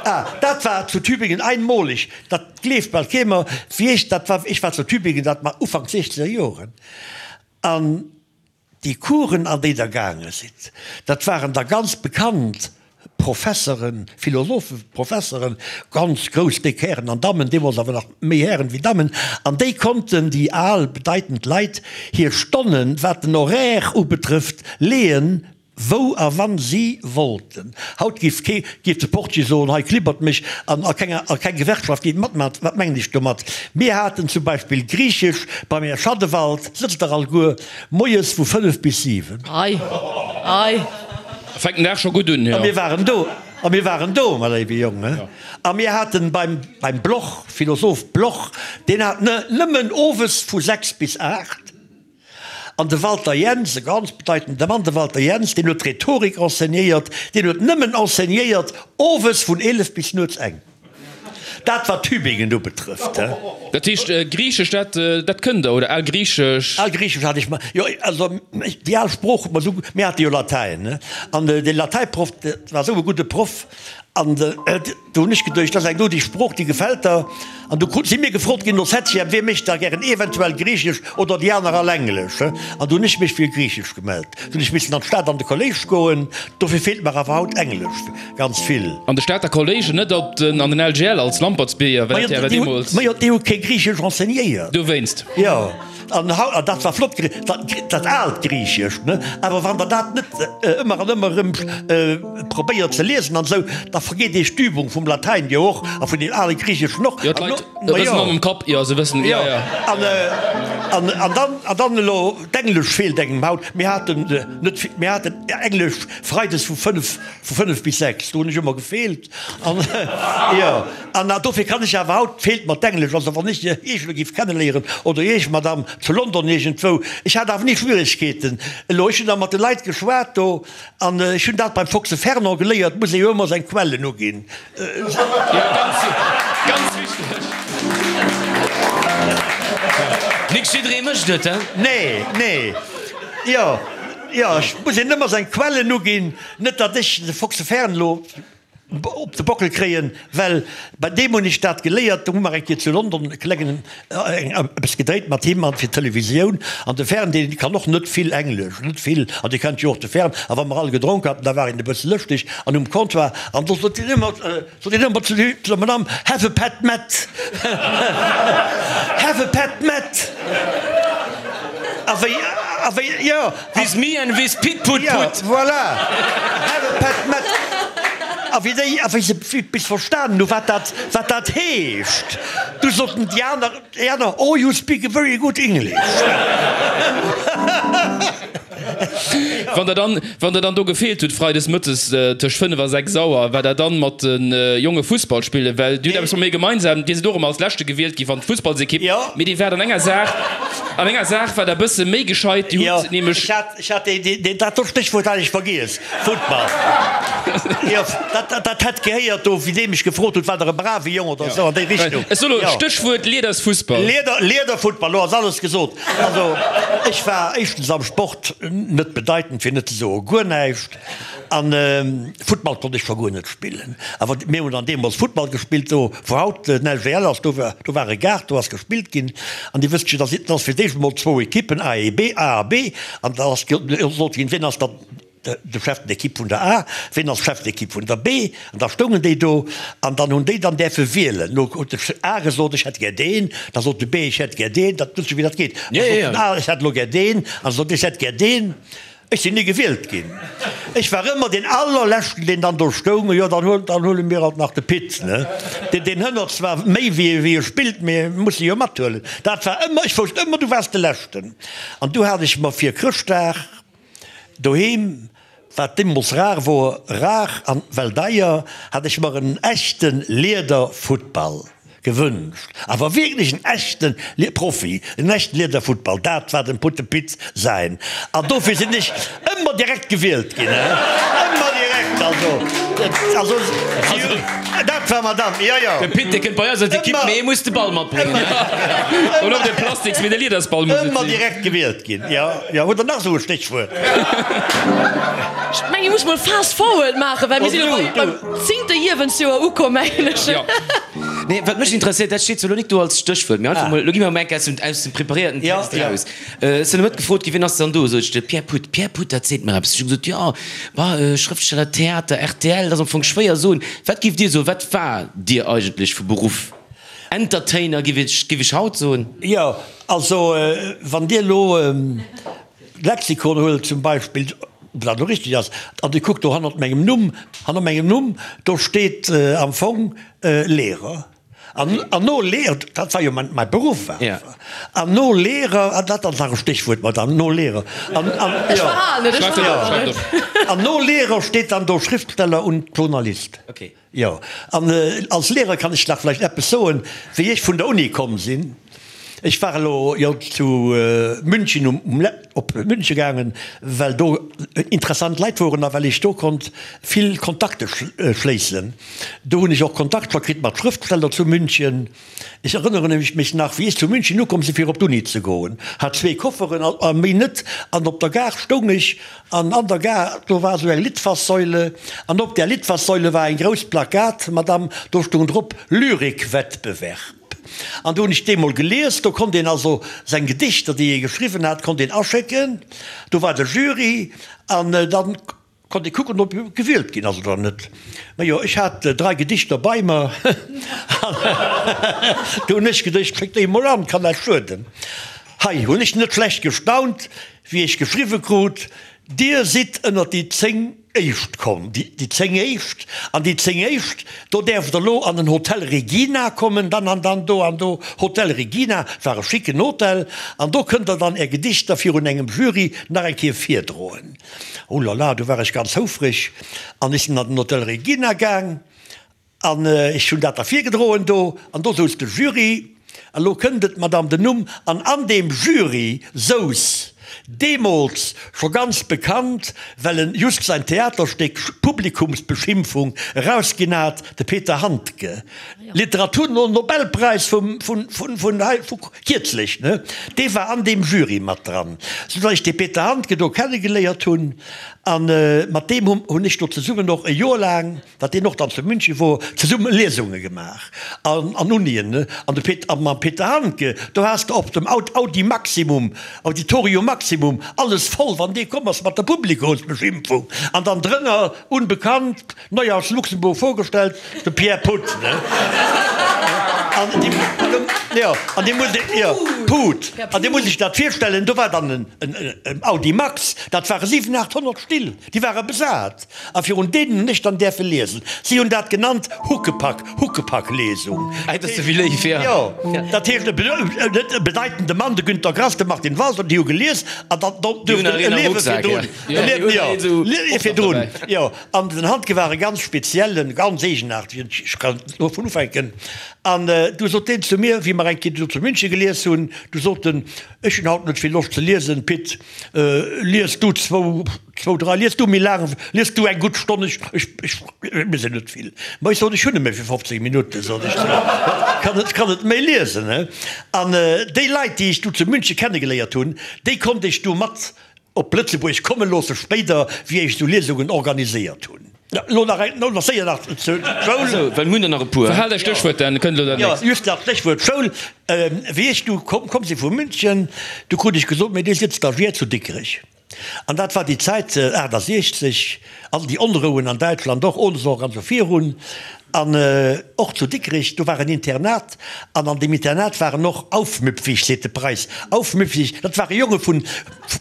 ah, dat war zu Tübingen einmolig, dat gleeft bal kee mer, wéi ech dat war, ech war zu Tübingen, dat war Ufank siechzeger Joren, an Déi Coursen, an déi Der gaange sidd, dat waren da ganz bekannt Professeren, Philosopheprofesseren, ganz grouss, déck Hären an Dammen, deemools awer nach méi Hären wéi Dammen, an déi konnten, déi al, bedeitend Leit, hir Stonnen, wat den Horaire ubetrëfft, leeën, wou a wann si wollten. Haut géif kee, géif de Portier soen, hei klibbert mech, an a kenger, a keng Gewerkschaft géif matmachen. Wat mengen ech domat? Mir haten zum Beispill Griichesch beim Här Schadewald, sëtzt der alleguer, moies vu 5 bis 7. Ei, ei. Fänkt den Dag scho gutt un, jo. A mir waren do, a mir waren do, mä léiwe Jong, he. A mir haten beim, beim Bloch, Philosoph Bloch, deen hat nëmmen owes vu 6 bis 8. An de Walter Jens, e ganz bedeitende Mann, de Walter Jens, deen huet Rhetorik enseignéiert, deen huet nëmmen enseignéiert owes vun 11 bis nuets eng. Dat wat Tübingen ubetrëfft, he. Dat heescht, Griichesch, dat, dat kënnt Der, oder Algriichesch? Algriichesch hat ech mer, jo, also déi al Sprooch huet mer esou, mir hate jo Latäin, ne, an dee Latäiproff, dat war esou e gudde Proff, an Do hunn ech geduecht, dat ass eng do déi Sprooch, déi gefält der. An du si mir gefrot ginn no Septième, wee mécht da gären eventuell Griichesch oder déi aner all Englesch. An du hunn ech mech fir Griichesch gemellt. Du hunn ech missen an d'Stad an de Kolléisch goen. Dofir feelt mer awer haut Englesch ganz vill. An de Stater Kolléisch, net op den, an den LGL als Lampertsbierger, well dat jo awer deemools. Majo, déi hu kee Griichesch enseignéiert. Dowéinst. Jo. An haut, an dat war flott, dat aalt Griichescht, ne? Awer wann Der dat net ëmmer an ëmmer erëm probéiert ze liesen an esou, da vergeet Iech d'Übung vum Latäin jo och a vun deem ale Griicheschen och. Jo, d'Leit rëselen mam Kapp, jo, se wëssen, jo, jo. An, an, an dann, an dann elo, d'Englesch feelt engem haut. Mir haten net vill, mir haten Englesch freides vu fënnef, vu fënnef bis sechs, do hunn ech ëmmer gefeelt. An, jo. An dofir kann ech awer haut, feelt mer d'Englesch, also wann ech Iech elo géif kenneléieren, oder Iech, Madame, zu London iergendwou, ech hat awer ni Schwieregkeeten elo, ech hunn da mat de Leit geschwat do, an ech hunn dat beim Foxe Fernand geléiert, muss ee jo ëmmer seng Quellen uginn. Jo, ganz, ganz wichteg. Nik jidderee mécht et, he? Nee, nee, jo, jo, ech muss een ëmmer seng Quellen uginn, net datt ech de Foxe Fern elo op de Bockel kréien, well bei deem hunn ech dat geléiert, do hu mer eng Kéier zu London e klengen eppes gedréit mat him an fir d'Televisioun, an de Fern dee kann och net vill Englesch, net vill, an Dir kennt jo och de Fern, a wa mer all gedronk haten, da war een e bësse lëschteg an um Comptoir, an do sot hien ëmmer, sot hien ëmmer zu der Madame, Have a pet met, have a pet met, a wéi, a wéi, jo. With me and with Pit Put Put. Jo, voilà, have a pet met. A wéi déi, a wéi se bis verstanen hu wat dat, wat dat heescht, du soten déi aner, déi aner, Oh, you speak a very good English. Wann der dann, wann der dann do gefeelt hutt freides mëttes tëscht 5 a 6 Auer, war der dann mat de Jonge Fussball spillen? Well dir hutt eppes mat mir gemeinsam, dir sidd och ëmmer als Leschte gewielt gi wann d'Fussballsekipp, mee dir waart an enger Saach, an enger Saach war der bësse méi gescheit, dir hutt nämlech. Ech hat dat do Stéchwuert hat ech vergiess, Futtball. Jo, dat hätt gehéiert do, wéi dee mech gefrot huet, war der e brave Jong oder esou an déi Richtung. Ech soe lo Stéchwuert Liedersfussball. Lieder, Liederfuttball, lo ass alles gesot. Also, ech war éischtens am Sport net bedeitend, fir net ze soe guer näischt. An Futtball konnt ech scho guer net spillen. Awer mir hunn dann deemools Futtball gespillt, do wou haut den LGL ass, do war, do war e Gaart, do ass gespillt ginn. An Dir wësst jo, dass et ass fir d'éischt emol zwou Ekippen, A e B, A a B, an da ass gesot ginn, wien ass dann de Chef d'équipe vun der A, wien ass Chef d'équipe vun der B. An da stoungen déi do an dann hunn déi dann däerfe wielen. Lo huet de A gesot, ech hätt gär deen, da sot de B, ech hätt gär deen, dat wësst jo wéi dat geet, da sot den A, ech hätt elo gär deen, an da sot ech hätt gär deen. Ech sinn ni gewielt ginn. Ech war ëmmer deen allerleschten, deen dann do stoung. Jo, dann huel, dann huele mir alt nach de Pit, ne? Deen, deen hënnert zwar méi wéi, wéi e spillt, mee mir musse jo mathuelen. Dat war ëmmer, ech wousst ëmmer, du waars de Leschten. An du hat ech mer fir Chrëschtdag doheem, wat deemools rar wor, rar an well deier, hat ech mer en echte Liederfuttball Gewënscht, awer wierklech en echten Profi, en echten Liederfuttball, dat war dem Putte Pit säin. An dofir sinn ech ëmmer direkt gewielt ginn, ëmmer direkt, also, also dat war Madame, jo, jo. De Pit, dee kënnt bei eis an d'Ekipp, mee e muss de Ball matbréngen. Oder op de Plastiks, mee de Liedersball muss et sinn. Ëmmer direkt gewielt ginn, jo, jo. Hutt Der nach esou e Stéchwuert? Ech mengen, mir musse mol fast forward maachen, well mir sinn elo beim zéngte Iewensjoer ukomm, mengen ech. Jo. Nee, wat mech interesséiert, dat steet zwar elo nik do als Stéchwuert, mee einfach mol, elo gi mer emol eng Kéier aus dem, aus dem preparéierten Text eraus. Ech sinn elo net gefrot ginn, wien ass dann do? Sot ech, de Pierre Puth. Pierre Puth, dat seet mer eppes. Ech hu gesot, jo, bah, Schrëftsteller, Theater, rtl, dat ass am Fong schwéier soen. Wat giff Dir soen, wat war Dir eigentlech vu Beruff? Entertainer, giff ech, giff ech haut soen. Jo, also wann Dir elo Lexikon huelt zum Beispill, ob dat elo richteg ass, an Dir kuckt do hannert mengem Numm, hanner mengem Numm, do steet am Fong Lehrer. An an no Lehrer, dat war jo mäin mäi Beruff awer, an no Lehrer, an dat ass nach e Stéchwuert, Madame, no Lehrer, an an Ech verhalen et, ech verhalen et. An no Lehrer steet dann do Schriftsteller und Journalist. Jo, an als Lehrer kann ech nach vläicht eppes soen, wéi ech vun der Uni komm sinn. Ech war elo jo zu München um op München gaangen, well do interessant Leit woren a well ech do konnt vill Kontakte schléissen. Do hunn ech och Kontakter kritt mat Schrëftsteller zu München. Ech erënnere mech nach, wéi ech zu München ukomm sinn, fir op d'Uni ze goen, hat zwee Kofferen a méi net, an op der Gare stoung ech, an an der Gare, do war esou eng Litfaßsäule, an op där Litfaßsäule war eng grouss Plakat, Madame, do stoung drop, Lyrikwettbewerb. An do hunn ech déi mol gelies, do konnt een also seng Gedichter, déi ee geschriwwen hat, konnt een aschécken, do war de Jury, an dann Konnt ee kucken, ob e gewielt ginn ass oder net. Majo, ech hat 3 Gedichter bei mer an du hunn ech geduecht, schéck déi emol an, kann näischt schueden. Hei hunn ech net schlecht gestaunt, wéi ech geschriwwe krut, Dir sidd ënnert déi 10 Éischt komm. Déi 10 Éischt? An déi 10 Éischt, do däerft der elo an den Hotel Regina kommen, dann an dann, do an do. Hotel Regina war e schicken Hotel an do kënnt der dann är Gedichter virun engem Jury nach eng Kéier virdroen. Oh la la, du war ech ganz houfreg an ech sinn an den Hotel Regina gaang an ech hunn dat da virgedroen do an do souz de Jury, an elo kënnt et, Madame, den Numm, an an deem Jury souz deemools scho ganz bekannt, well en just säin Theaterstéck Publikumsbeschimpfung erausginn hat, de Peter Handke. Literaturnobelpräis vum, vun, vun, vun hei, vu kierzlech, ne, dee war an deem Jury mat dran, soudatt ech dee Peter Handke do kennegeléiert hunn. A mat deem hu hunn ech do zesummen och e Joer laang, wat deen och dann zu München wor, zesumme Liesunge gemaach an, an Unien, ne. An de Pet, a mam Peter Handke, do has de op dem Aud, Audi Maximum, Auditorium Maximum, alles voll, wann dee komm ass mat der Publikumsbeschimpfung. An dann drënner, unbekannt, Neu aus Luxemburg vorgestellt, de Pierre Puth, ne? An déi, jo, an déi muss, jo, Put. An Dir musst Iech dat virstellen, do war dann en Audimax, dat ware 7, 800 Still, déi ware besat. A virun deenen hunn ech dann däerfe liesen. Si hunn dat genannt Huckepack, Huckepack-Lesung. Dat ass wéi léif, jo. Jo, dat heescht e bedeitende Mann, de Günter Grass, de Martin Walser, déi hu gelies an dann duerften e Liewe virdrun, e Liewe, jo, Liewe virdrun, jo. An den Handke war e ganz speziellen, ganz eegenaartegen, ech kann dovun ufänken. An du sot deen zu mir, wéi mer eng Kéier do zu München gelies hunn, du sot en, Ech hunn haut net vill Loscht ze liesen, Pit, lies du zwou, zwou, drai, lies du méi laang, lies du eng gutt Stonn, ech, ech, ech, mir sinn net vill. Ma ech sot, ech hunn nëmme fir 15 Minutten, sot ech zu him, kann net, kann net méi liesen, he. An déi Leit, déi ech du zu München kennegeléiert hunn, déi konnt ech du mat op Lëtzebuerg komme loosse spéider, wéi ech esou Liesungen organiséiert hunn. Elo nach eng, elo nach séier nach zur Schoul. Esou, well mir hunn der nach e puer. Verhaalt Är Stéchwuert, dann kënnt elo dat nächst. Jo, just nach d'Stéchwuert Schoul. Wéi ech du komm, komm si vu München, du krut ech gesot, Mee Dir sidd Stagiaire zu Dikrech. An dat war déi Zäit, 68, all déi Onrouen an Däitschland och, Ohnesorg an esou virun. An och zu Dikrech, do war en Internat, an an deem Internat waren och aufmüpfig, seet de Preis, aufmüpfig, dat ware Jonge vun,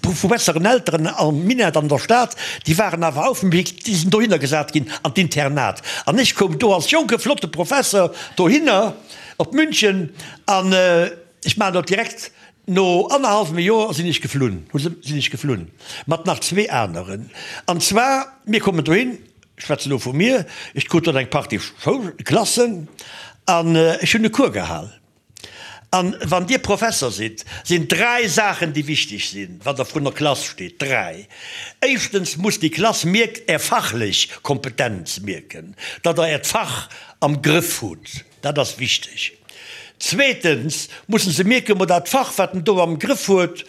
vu besseren Elteren am Minett an der Stad, déi waren awer aufmüpfig, déi sinn dohinner gesat ginn an d'Internat. An ech koum do als jonke flotte Professer dohinner op München an ech maachen dat direkt, no annerhallwem Joer sinn ech geflunn, hu se, sinn ech geflunn mat nach zwee aneren. An zwar, mir kommen dohin, Ech schwätzen elo vu mir, ech krut dann eng Partie Schoulklassen an ech hunn e Cours gehal. An wann Dir Professer sidd, sinn dräi Saachen, déi wichteg sinn, wann Der vrun der Klass steet. Dräi. Éischtens muss déi Klass mierkt Är fachlech Kompetenz mierken, datt Der Äert Fach am Grëff hutt. Dat ass wichteg. Zweetens musse se mierken, ma dat Fach, wat en do am Grëff huet,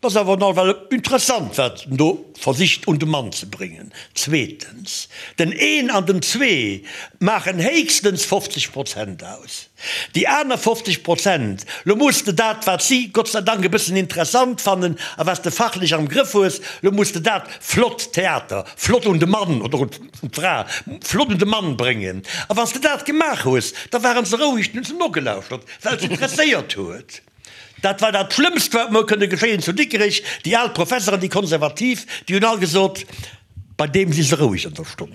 Dat ass awer nawell interessant, wat en do versicht un de Mann ze bréngen. Zweetens, den een an den zwee maachen héchstens 50 Prozent aus. Déi aner 50 Prozent, lo muss de dat, wat si Gott sei Dank e bëssen interessant fannen a wat s de fachlech am Grëff hues, lo muss de dat flott Theater, flott un de Mann oder un d'Fra, flott un de Mann bréngen. A wann s de dat gemaach hues, da waren se roueg, dann hu se nogelauschtert, well et se interesséiert huet. Dat war dat Schlëmmst, wat mer kënne geschéien zu Dikrech. Déi al Professeren, déi Konservativ, déi hunn all gesot, Bei deem si se roueg an der Stonn.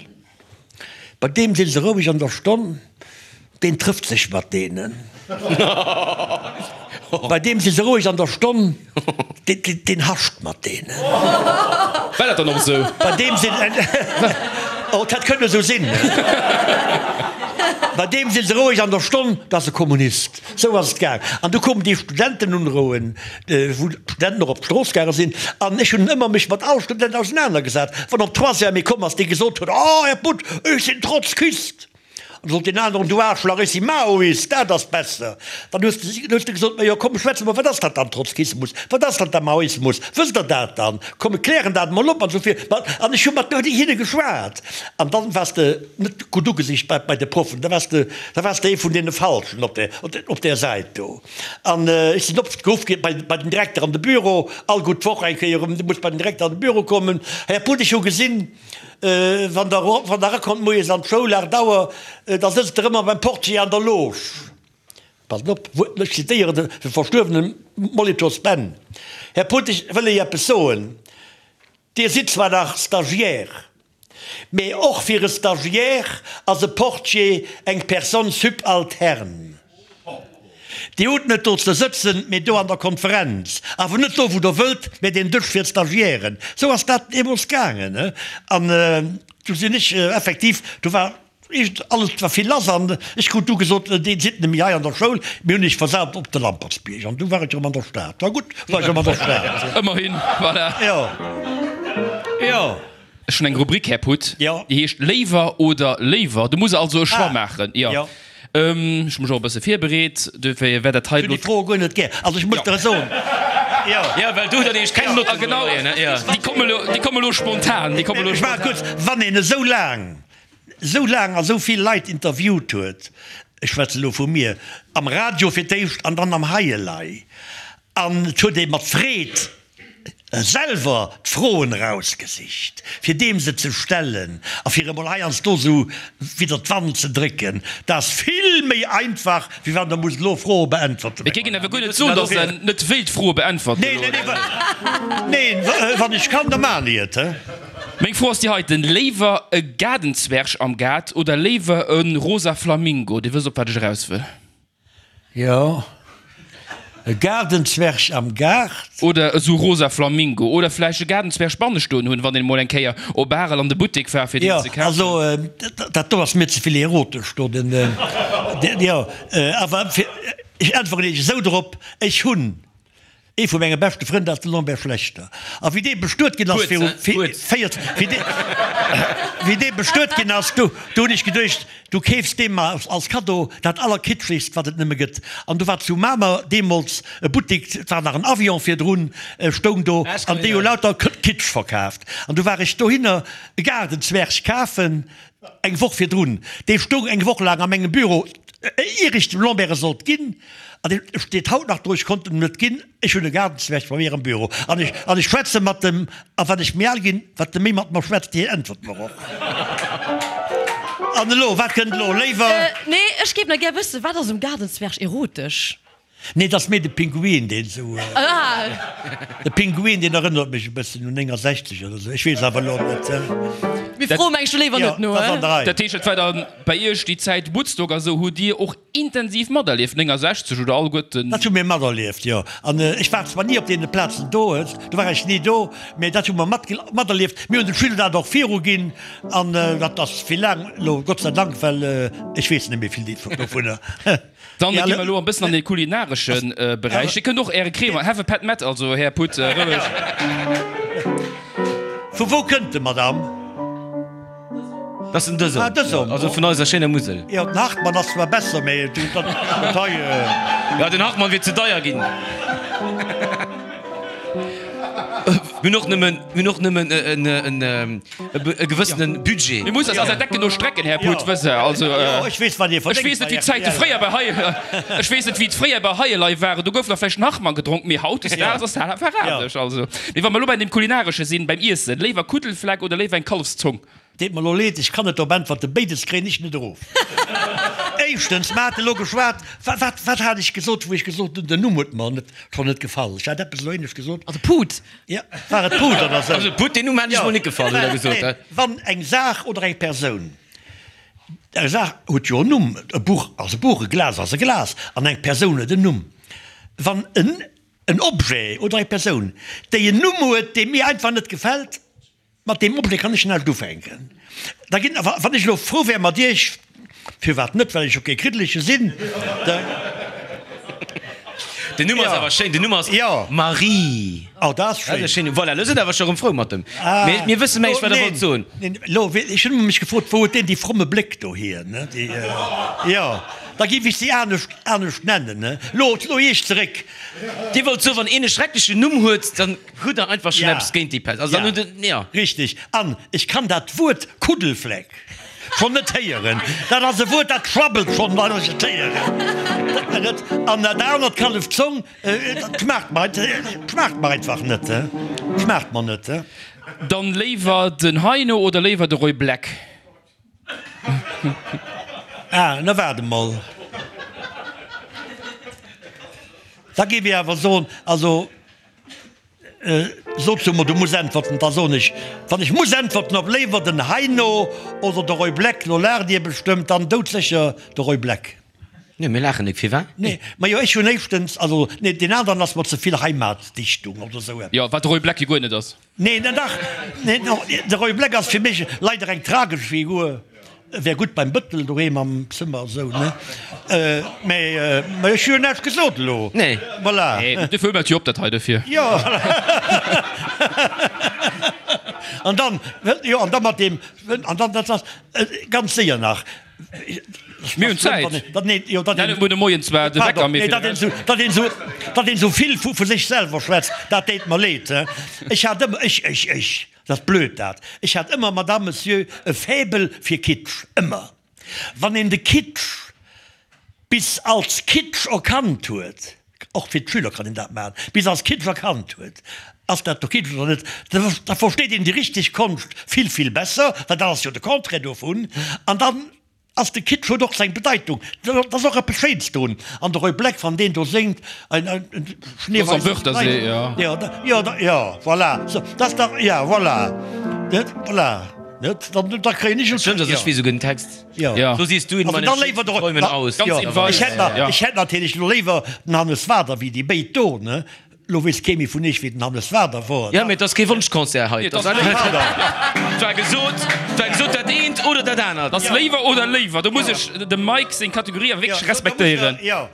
Bei deem si se roueg an der Stonn, deen trëfft sech mat deenen. Bei deem si se roueg an der Stonn, deen hascht mat deenen. War dat dann och esou? Bei deem sinn, oh, dat hätt kënne esou sinn. Bei deem si se roueg an der Stonn, dat ass e Kommunist. Sou ass et gaang. An du koumen déi Studentenunrouen, wou d'Studenten och op d'Strooss gaange sinn. An ech hunn ëmmer mech mat all Student ausenanergesat. Wann op Troisième ee komm ass, dee gesot huet, Oh, Här Butt, ech sinn Trotzkist! An da sot deen aneren, Du Aarschlach, ech si Maoist, dat ass besser. Dann hues de, hues de gesot, Majo, komm, schwätze mer, wat ass dat dann, Trotzkismus? Wat ass dann da Maoismus? Wësst Der dat dann? Komm, mir klären dat emol op an esou vir. An ech hu mat hinne geschwat. An dann waars de net gutt ugesicht bei, bei de Proffen, da waars de, da waars de ee vun deene Falschen op där, op där Säit do. An ech sinn oft geruff gi bei, bei den Direkter an de Büro, all gutt Woch eng Kéier erëm, du muss bei den Direkter an de Büro kommen. Här Put, ech hu gesinn, wann Der, wann Der erakommt moies an d'Schoul, 8 Auer, da sëtzt Der ëmmer beim Portier an der Loge. Passt op, ech zitéieren de verstuerwene Molitor Ben, Här Put, ech wëll Iech eppes soen, Dir sidd zwar nach Stagiaire, mee och fir e Stagiaire ass e Portier eng Personne subalterne. Dir hutt net do ze sëtzen, mee do an der Konferenz. Awer net do, wou Der wëllt, mee deen Dësch fir d'Stagiairen. Sou ass dat deemools gaangen. An du sinn ech effektiv, do war Iergend alles war vill lass an ech krut du gesot, Dir sidd net méi hei an der Schoul, mir hunn iech versat op de Lampertsbierg. An du war ech erëm an der Stad. War gutt, war ech erëm an der Stad. Ëmmerhin, voilà. Jo, jo. Ech hunn eng Rubrik, Här Putt, Jo. déi heescht Léiwer oder Léiwer. Du muss also e Choix Ah, maachen. Jo. jo. Ech hu mech och e bësse virbereet, dofir wäert dat hei Ech hunn elo. déi Froe guer net gär. Also ech muss der soen, jo. Jo, well du hutt dann nämlech keng Notten. Ah, genau, Jo. déi komme elo, déi komme elo spontan, déi komme elo Ech maache spontan. kuerz, Wann een esou laang esou laang a sou vill Leit interviewt huet, ech schwätze lo vu mir, am Radio fir d'éischt an dann am Hei elei, an et huet ee mat Freed. Selwer d'Froen erausgesicht, fir deem se ze stellen a fir emol heiansdo esou widder d'Wand ze drécken. Dat ass vill méi einfach, wéi wann Der musst elo Froe beäntwerten. Mir géingen awer guer net soen, datt Der net wéilt Froe beäntwerten elo. Neen, wann ech kann, da maachen ech et. Meng Fro ass déi heiten, Léiwer e Gaardenzwerg am Gaart oder léiwer e rosa Flamingo? Dir wësst, op wat ech eraus wëll. Jo, e Gaardenzwerg am Gaart. Oder esou rosa Flamingo. Oder vläicht e Gaardenzwerg banne stoen hunn, wann een emol eng Kéier op Arel an de Buttek war fir deen ze kafen. Jo, also dat do ass mir ze vill erotesch do, den, jo, awer fir, ech äntweren Iech esou drop, ech hunn Ee vu menge beschte Frënn, dat ass de Lambert Schlechter. A wéi dee bestuet ginn ass viru 40, wéi dee bestuet ginn ass, du hunn ech geduecht, du keefs deem mar als Kaddo dat Allerkitschegst, wat et nëmme gëtt. An du war zu Mamer deemools e Buttik, et war nach en Avion virdrun, stoung do, an déi hu lauter Kitsch verkaaft. An du war ech dohinner e Gaardenzwerg kafen, Eng Woch virdrun, dee stoung eng Woch laang a mengem Büro, ier ech dem Lambert e sollt ginn, an dee steet haut nach do, ech konnt en em net ginn, ech hunn e Gaardenzwerg bei mir am Büro an ech, an ech schwätze mat em, a wat ech méi al ginn, wat e méi mat mer schwätzt, hien äntwert mer och. An elo, wat kënnt elo, léiwer? Nee, ech géif nach gär wëssen, wat ass um Gaardenzwerg erotesch? Nee, et ass méi de Pinguin, deen esou. De Pinguin, deen erënnert mech e bëssen un 69 oder esou. Ech weess awer elo net. Mir froe meng ech do léiwer net no. Jo, dat ass an der Rei. Dat heescht, et war dann bei Iech déi Zäit Woodstock a sou, hutt Dir och intensiv materlieft, 69 oder alleguerten? Dat hu mir materlieft, jo. An ech war zwar ni op deene Plazen do, do war ech ni do, mä dat hu mer materlieft. Mir hunn de Schüler dat och viruginn an dat ass vill laang elo, Gott sei Dank, well ech weess net méi vill dovunner. Dann gi mer elo e bëssen an de kulinaresche Beräich. Dir kënnt och Äre Cremant, have a pet met, also Här Putt, roueg. Vu wou kënnt de, Madame? Dat ass den Dësum. Ah, Dësum. Also vun eiser schéiner Musel. Jo, den Hartmann ass zwar besser, mee dat hei. Jo, den Hartmann wier ze deier ginn. Mir hunn och nëmmen, mir hunn och nëmmen en. E gewëssene Budget. Mir mussen eis eis Decken no strecken, Här Put, wësst Der. Also, ech weess, wat Dir verdéngt. Ech weess net, wéi d'Zäite fréier bei hei, ech weess net, wéi et fréier bei Heielei waren. Do gouf nach vläicht en Hartmann gedronk, mee hautdesdaags ass dat awer anescht. Also, mee wa mer elo bei deem Kulinaresche sinn, beim Iessen, léiwer Kuddelfleck oder léiwer eng Kallefszong? Deet mer elo leed, ech kann net drop äntwerten. Béides kréien ech net erof. Éischtens, mer hate elo geschwat, wat, wat hat ech gesot, wou ech gesot hunn, den Numm huet mer net, schonn net gefall. Ech hat eppes elo éinescht gesot. Also Put. Jo, war et Put oder sou? Also Put, deen Numm hat ech mol net gefall, huet der gesot, he? Wann eng Saach oder eng Persoun, eng Saach huet jo en Numm, e Buch ass e Buch, e Glas ass e Glas, an eng Persoun huet en Numm. Wann en en Objet oder eng Persoun, déi en Numm huet, dee mir einfach net gefält, Mat deem Objet kann ech näischt ufänken. Da ginn, wann ech elo frou wär mat Iech, firwat net, well ech jo kee Kriddeleche sinn, da. Den Numm ass awer schéin, den Numm ass Marie. Oh, dat ass schéin. Dat ass e schéin Numm. Voilà, elo sidd Der awer scho rëm frou mat em. Mee mir wësse mengs, wat Der wollt soen. Neen, elo, ech hunn ëmmer mech gefrot, wou huet deen déi fromme Bléck dohier, ne? Déi, jo, da géif ech si anescht, anescht nennen, ne? Elo, elo Iech zeréck. Dir wollt soen, wann een e schrecklechen Numm huet, dann. Hutt der einfach schon eppes géint déi Pest? Also dann hutt der, ja. Richtig. An ech kann dat Wuert Kuddelfleck schonn net héieren. Dat ass e Wuert, dat schwabbelt schonn, wann ech et héieren. An dat anert, Kallefzong, dat schmaacht mer, schmaacht mer einfach net. Schmaacht mer net. Dann léiwer den Heino oder léiwer de Roy Black? Ah, na waart emol. Da géif ech awer soen, also. Sot zu mer, du muss äntwerten, da soen ech, wann ech muss äntwerten, ob léiwer den Heino oder de Roy Black, lo laacht Dir bestëmmt, dann doudsécher de Roy Black. Nee, mir laachen nik, firwat? Nee, majo, ech hunn éischtens, also nee, deen aneren ass mer ze vill Heimatdichtung oder esou eppes. Jo, wat de Roy Black jo guer net ass. Nee, dach, nee, de Roy Black ass fir mech leider eng tragesch Figur. Wär gutt beim Bëttel doheem am Zëmmer esou, ne? Mä ech hu jo näischt gesot elo. Nee. Voilà. Nee, dofir hu mer et jo op dat hei dofir. Jo. An dann, jo, an da mat deem, an dann, dat ass ganz séier nach. Mir hunn Zäit. Dat, nee, jo, dat een. Gudde Moien zwar, de Wecker, mee. Dat een esou, dat een esou, dat een esou vill vu sech selwer schwätzt, dat deet mer leed, he. Ech hat ëmmer, ech, ech, ech. Dat ass blöd dat. Ech hat ëmmer, Madame, Monsieur, e Faible fir Kitsch. Ëmmer. Wann een de Kitsch bis als Kitsch erkannt huet, och fir d'Schüler kann een dat maachen, bis als Kitsch erkannt huet. Ass dat do Kitsch oder net? Da versteet een déi richteg Konscht vill, vill besser, well dat ass jo de Contraire dovun. An dann ass de Kitsch huet och seng Bedeitung, dat ass och eppes Schéins drun. An de Roy Black, wann deen do séngt, ein, ein schneeweißes Kleid, jo, jo, jo, voilà, dat ass dach, ja, voilà, net, voilà, net, dann, da kréien ech. Stëmmt, ass ech weess esouguer den Text. Jo. So siehst du in meinen schönsten Träumen aus. Jo, ech hätt, ech hätt natierlech elo léiwer den Hannes Wader wéi déi béid do, ne. Lo weess kee méi vun iech wéi den Hannes Wader wor. Jo, mee et ass kee Wonschconcert hei. Et ass war gesot, et war gesot dat eent oder dat anert. Et ass léiwer oder léiwer. Do muss ech dem Mike seng Kategorie awer wierklech respektéieren. Jo,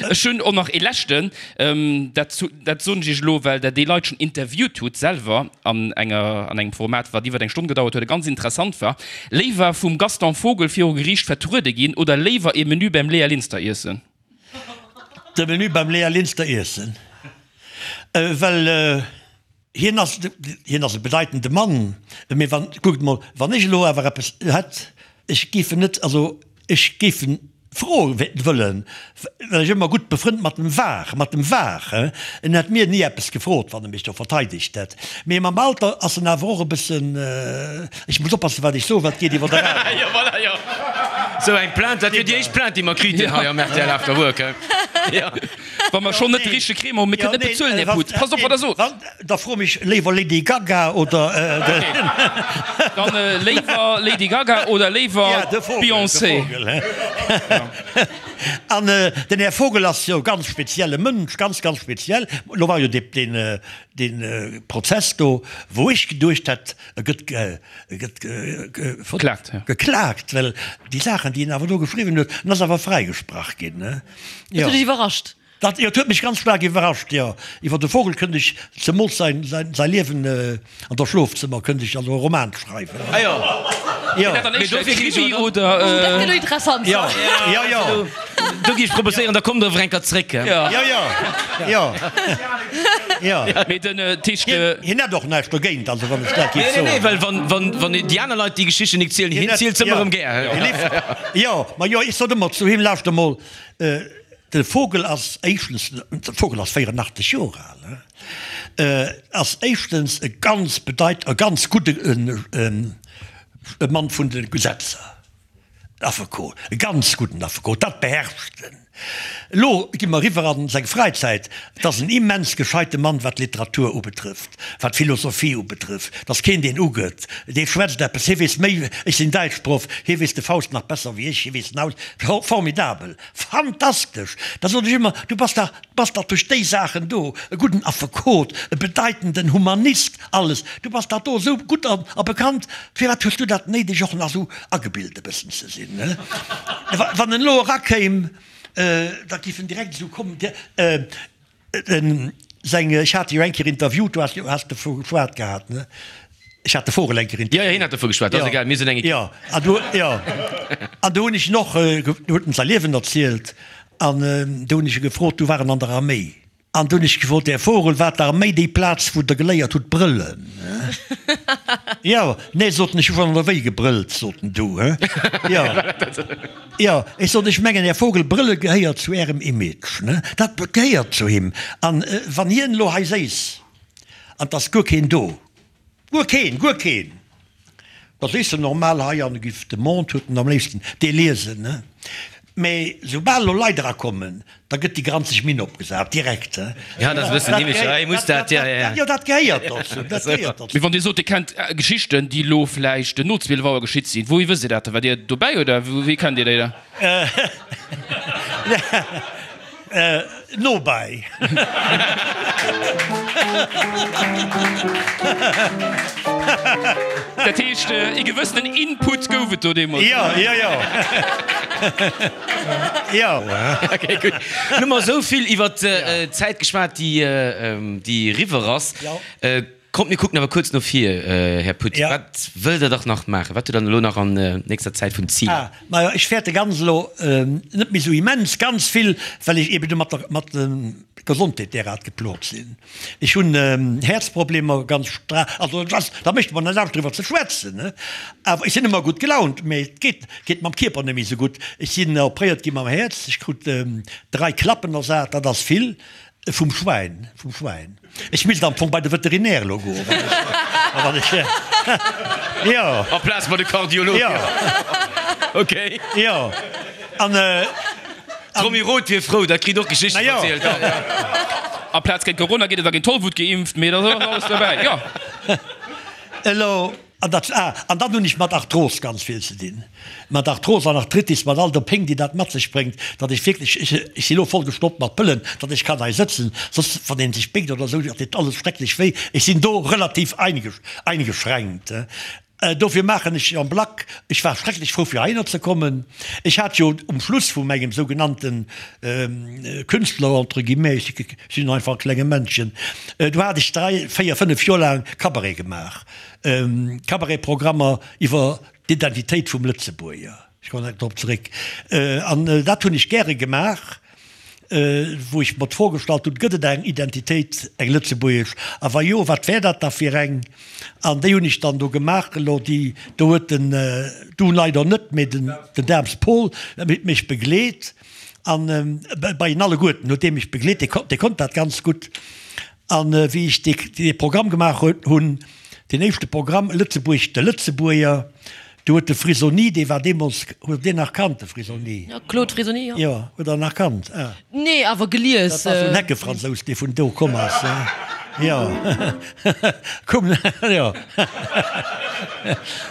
ech hunn och nach ee leschten, dat dat soen ech iech elo, well der déi Leit schonn interviewt hutt selwer an enger an engem Format, wat iwwer eng Stonn gedauert huet a ganz interessant war. Léiwer vum Gaston Vogel viru Geriicht vertruede ginn oder léiwer ee Menü beim Léa Linster iessen? De Menü beim Léa Linster iessen, well hien ass, hien ass e bedeitende Mann, mee wann, kuckt emol, wann ech elo awer eppes hätt, ech géif en net, also ech géif en froe wëllen, well ech ëmmer gutt befrënnt mat em war, mat em war, en hätt mir ni eppes gefrot, wann e mech do verteidegt hätt, mee mam Alter ass en awer och e bëssen, ech muss oppassen, wat ech soen, well et geet iwwer de Radio. Jo, voilà, jo. Sou eng Plainte, dat wier déi éischt Plainte, déi mer kriten hei am rtl After Work, he? Jo. Wa mer schonn net de richtege Cremant hunn, mir kënnen net bezuelen, Här Putz. Passt op, wat Der sot. Da fro mech léiwer Lady Gaga oder den. Dann léiwer Lady Gaga oder léiwer Beyoncé. An den Här Vogel ass jo e ganz spezielle Mënsch, ganz, ganz speziell. Lo war jo dee Prozess do, wou ech geduecht hätt, e gëtt gëtt geklagt, well déi Saachen, déi en awer do geschriwwen huet, en ass awer fräigesprach ginn. Dat huet dech iwwerrascht? Dat huet mech ganz staark iwwerrascht, jo. Iwwer de Vogel kënnt ech, zemools säin Liewen an der Schlofzëmmer, kënnt ech also e Roman schreiwen. Ah jo. Jo. Mee dofir Krimi oder? Dat gëtt elo interessant. Jo, jo, jo. Do gi ech proposéieren, da kommt der awer eng Kéier zréck. Jo, jo, jo, jo. Mee den Tisch. Hien hätt och näischt dogéint, also wann ech dat géif soen. Nee, nee, well wann, wann, wann déi aner Leit déi Geschichten nik zielen, hien zielt se ëmmer erëm gär. Jo, ma jo, ech sot ëmmer zu him, Lauschter mol, de Vogel ass éischtens, de Vogel ass 84 Joer al, ass éischtens e ganz bedeit, e ganz gudde Mann vun de Gesetzer. Affekot, e ganz gudden Affekot, dat beherrscht en. Elo gi mer eriwwer an seng Fräizäit. Et ass en immens gescheite Mann, wat d'Literatur ubetrëfft, wat d'Philosophie ubetrëfft. Et ass keen, deen ugëtt. Dee schwätzt eppes, hie weess méi, ech sinn Däitschproff, hie weess de Faust nach besser wéi ech, hie weess en aus. Formidabel, fantastesch! Da sot ech ëmmer, du bass dach, bass dach duerch déi Saachen do e gudden Affekot, e bedeitenden Humanist, alles, du bass dach do esou gutt a bekannt, firwat hues du dat néideg och nach esou agebilt e bëssen ze sinn, ne? Wann en elo erakéim, da géif en direkt esou kommen, den seng, ech hat e jo eng Kéier interviewt, du has jo, has dovu geschwat gehat, ne? Ech hat de Vogel eng Kéier interviewt. Jo, jo, hien hat dovu geschwat, ass egal, mir sinn eng Ekipp. Jo, an du, jo, an do hunn ech en och, do huet en säi Liewen erzielt an do hunn ech e gefrot, du war en an der Arméi. An du hunn ech gefrot, Här Vogel, war d'Arméi déi Plaz, wou Der geléiert hutt brëllen? Jo, nee, sot en, ech hu schonn an der Wéi gebrëllt, sot en du. Jo, jo, ech sot, ech mengen, Här Vogel, brëlle gehéiert zu Ärem Image, ne? Dat gehéiert zu him. An wann hien elo hei séiss an 't ass guer keen do, Guer keen, guer keen! Da sees de normal hei an giff de Monde huet en am léifsten dee liesen, ne? Mee soubal elo Leit erakommen, da gëtt déi granzeg Minn opgesat, direkt, he? Ja, dat ass e bëssen heemlech, ja, hie muss dat, ja, ja. Jo, dat gehéiert dozou, dat gehéiert dozou. Mee wann Dir sot, Dir kennt Geschichten, déi elo vläicht no 12 Auer geschitt sinn, wouhi wësst Dir dat da? Waart Dir dobäi oder wéi kennt Dir déi da? Nobäi. Dat heescht, ee gewëssenen Input gouf et do deemools. Jo, jo, jo. Jo. Ok, gutt. Nun hu mer esou vill iwwer d'Zäit geschwat, déi, déi eriwwer ass. Kommt mir kucken awer kuerz no vir, Här Putz. Ja. Wat wëllt Der dach nach maachen? Wat hutt Der dann elo nach an nächster Zäit vun Ziler? Ah, majo, ech fäerte ganz elo net méi esou immens ganz vill, well ech eben do mat der mat der Gesondheet derart geplot sinn. Ech hunn Häerzproblemer, ganz stra, also et ass, da mécht mer net Angscht driwwer ze schwätzen, ne, awer ech sinn ëmmer gutt gelaunt, mee et geet geet mam Kierper net méi esou gutt. Ech sinn opréiert gi mam Häerz, ech krut 3 Klappen ersat, dat ass vill. Vum Schwäin, vum Schwäin. Ech misst am Fong bei de Veterinär elo goen, wann ech, jo. Amplaz bei de Kardiolog. Jo. Okay. Jo. An. D'Romy Roth wier frou, dat kritt och Geschichten verzielt. Amplaz géint Corona gétt et da géint Tollwut geimpft, mee da ass alles dobäi, jo. Elo. An dat, ah, an dann hunn ech mat Arthros ganz vill ze dinn, mat Arthros an Arthritis, mat all der Péng, déi dat mat sech bréngt, datt ech wierklech, ech, ech si lo voll gestoppt mat Pëllen, datt ech kann hei sëtzen, soss, wann een sech béckt oder esou, dat deet alles schrecklech wéi. Ech sinn do relativ eingeschränkt. Dofir maachen ech en bloc. Ech war schrecklech frou, fir heihinner ze kommen. Ech hat jo um Schluss vu mengem sougenannten Künstler, entre guillemets, ech sinn einfach e klenge Männchen, do hat ech dräi, véier, fënnef Joer laang Cabaret gemaach. Cabaret-Programmer iwwer d'Identitéit vum Lëtzebuerger. Ech kommen nach drop zeréck. An dat hunn ech gäre gemaach, wou ech mer d'Fro gestallt hunn, Gëtt et eng Identitéit, eng lëtzebuergesch? A wa jo, wat wär dat da fir eng? An déi hunn ech dann do gemaach. Elo déi do huet den, du leider net, mee den Daems Paul mech begleet. An bei en alleguerten huet dee mech begleet, dee konnt dat ganz gutt. An wéi ech dee Programm gemaach hunn, deen éischte Programm Lëtzebuerg, de Lëtzebuerger, do huet de Frisoni, dee war deemools, huet Der deen nach kannt, de Frisoni? Jo, Claude Frisoni, jo. Jo, huet Der en nach kannt? Ah. Nee, awer gelies. Dat war esou en Heckefransous, dee vun do komm ass, jo. Komm, jo.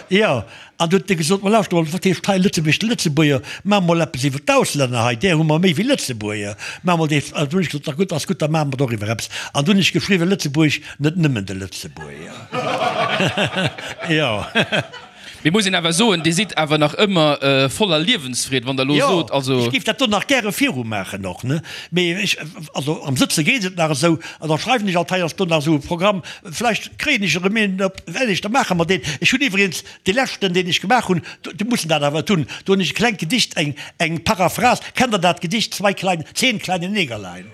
Jo. An du huet e gesot, Ma lauschter mol, wat heescht hei Lëtzebuerg, de Lëtzebuerger? Maache mol eppes iwwer d'Auslänner hei, där hu mer méi wéi Lëtzebuerger. Maache mol dee. An du hunn ech gesot, Na gutt, ass gutt, da maache mer doriwwer eppes. An du hunn ech geschriwwen, Lëtzebuerg, net nëmmen de Lëtzebuerger. Jo. Mee muss een awer soen, Dir sidd awer nach ëmmer voller Liewensfreed, wann Der elo sot, also. Jo, ech géif dat do nach gäre virumaachen och, ne? Mee ech, also am Sëtze geet et nach esou, an da schreiwen ech alt heiansdo nach esou e Programm, vläicht kréien ech erëm een op, well ech, da maache mer deen. Ech hunn iwwregens Dee leschten, deen ech gemaach hunn, do mussen dat awer hunn, do hunn ech e klengt Gedicht, eng, eng Paraphrase, kennt Der dat Gedicht Zwei kleine, Zehn kleine Negerlein?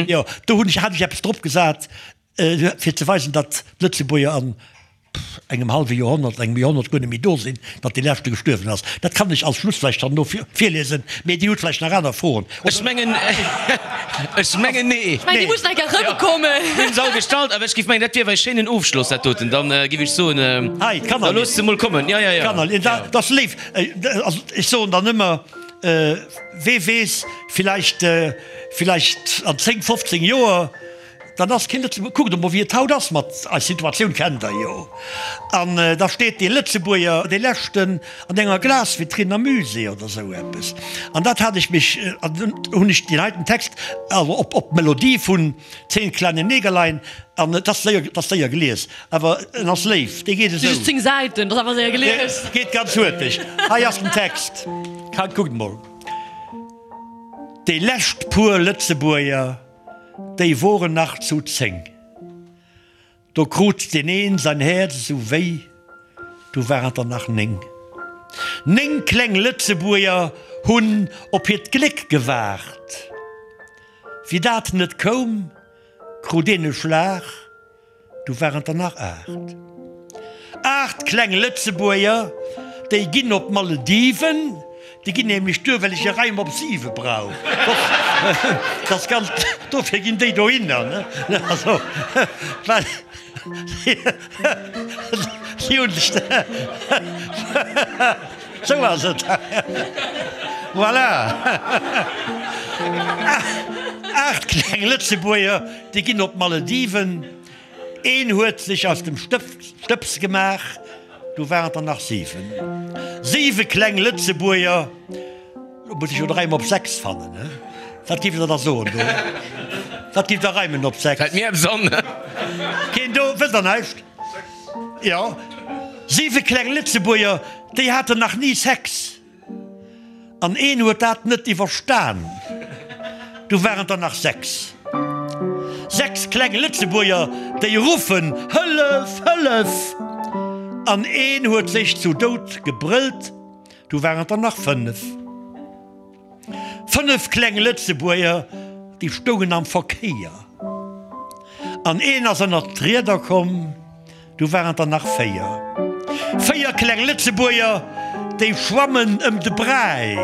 Jo, do hunn ech, hat ech eppes drop gesat, fir ze weisen, datt d'Lëtzebuerger an engem hallwe Joerhonnert, engem Joerhonnert guer net méi do sinn, datt dee leschte gestuerwen ass. Dat kann ech als Schluss vläicht dann elo virliesen, mee Dir hutt vläicht nach aner Froen. Ech mengen, ech mengen nee. Ech mengen, déi mussen eng Kéier erëmkommen. Mir hunn se all gestallt, awer ech géif mengen, dat wier awer e schéinen Ofschloss, dat doten. Dann géif ech soen, Hei, da looss se mol kommen. Ja, ja, ja. D'Kanner, dat ass léif. Also ech soen dann ëmmer, wee weess, villäicht, villäicht an 10, 15 Joer, Dann ass kee Lëtzebuerger. Kuckt emol, wéi et haut ass mat eis Situatioun, kennt Der jo. An da steet dee Lëtzebuerger, dee leschten, an enger Glasvitrinn am Musée oder esou eppes. An dat hat ech mech, an dunn hunn ech deen heiten Text, also op, op d'Melodie vun Zehn kleine Negerlein, an et ass séier, et ass séier gelies, awer en ass léif, dee geet esou. Just 10 Säiten, dat ass awer séier gelies. Geet ganz huerteg. Hei ass den Text. Kuckt emol. Déi lescht puer Lëtzebuerger. Déi woren nach zu 10. Do krut deen een säin Häerz esou wéi, du waren et der nach 9. 9 kleng Lëtzebuerger hunn op hiert Gléck gewaart. Wéi dat net koum, krut een e Schlag. Du waren et der nach 8. 8 kleng Lëtzebuerger, déi ginn op d'Malediven. Déi ginn nämlech duer, well ech e Reim op 7 brauch. Dat ass ganz, dofir ginn déi dohinner, ne? Also, well si hunn sech, sou ass et. Voilà. 8 kleng Lëtzebuerger, Déi ginn op d'Malediven. Een huet sech aus dem Stëbs gemaach, du waren et der nach 7. Siwe kleng Lëtzebuerger, lo muss ech jo de Reim op 6 fannen, he? Wat giff der da soen do? Wat giff der reimen op 6? Fält mir eppes an? Keen do? Wësst der näischt? Jo, siwe kleng Lëtzebuerger, déi haten nach ni Sex. An een huet dat net iwwerstan. Du waren der nach 6. 6 kleng Lëtzebuerger, déi ruffen, Hëllef! Hëllef! An een huet sech zu Doud gebrëllt. Du waren der nach 5. 5 kleng Lëtzebuerger, déi stoungen am Verkéier. An een ass ënnert d'Rieder komm. Du waren et der nach 4. 4 kleng Lëtzebuerger, déi schwammen ëm de Bräi.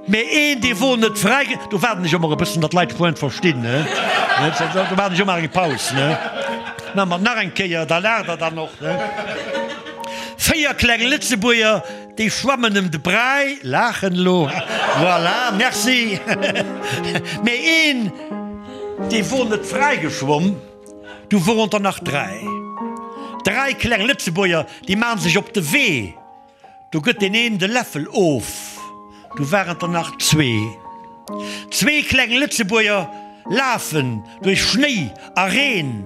Mee een, dee wor net fräi. Do waarden ech ëmmer e bëssen, datt d'Leit d'Pointe verstinn, ne? Do maachen ech ëmmer eng Paus, ne? Maache mer nach eng Kéier, da laacht Der dann och, ne? 4 kleng Lëtzebuerger, déi schwammen ëm de Bräi, laachen elo, voilà, merci. Mee een, dee wor net fräigeschwomm, du woren der nach 3. 3 kleng Lëtzebuerger, déi maachen sech op de Wee. Do gëtt deen een de Läffel of, du waren et der nach zwee. Zwee kleng Lëtzebuerger lafen duerch Schnéi a Reen,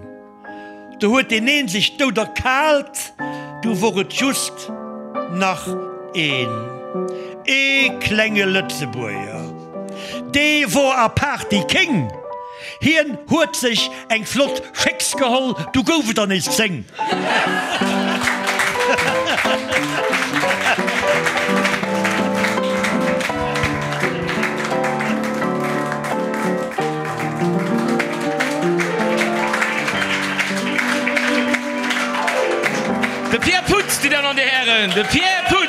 do huet deen een sech dout erkaalt, du wor et just nach een. Ee klenge Lëtzebuerger, dee wor apaart déi Kéng. Hien huet sech eng flott Schécks geholl, du gouf et der nees 10. De Pierre Putz, Dir Dammen an Dir Hären, de Pierre Putz!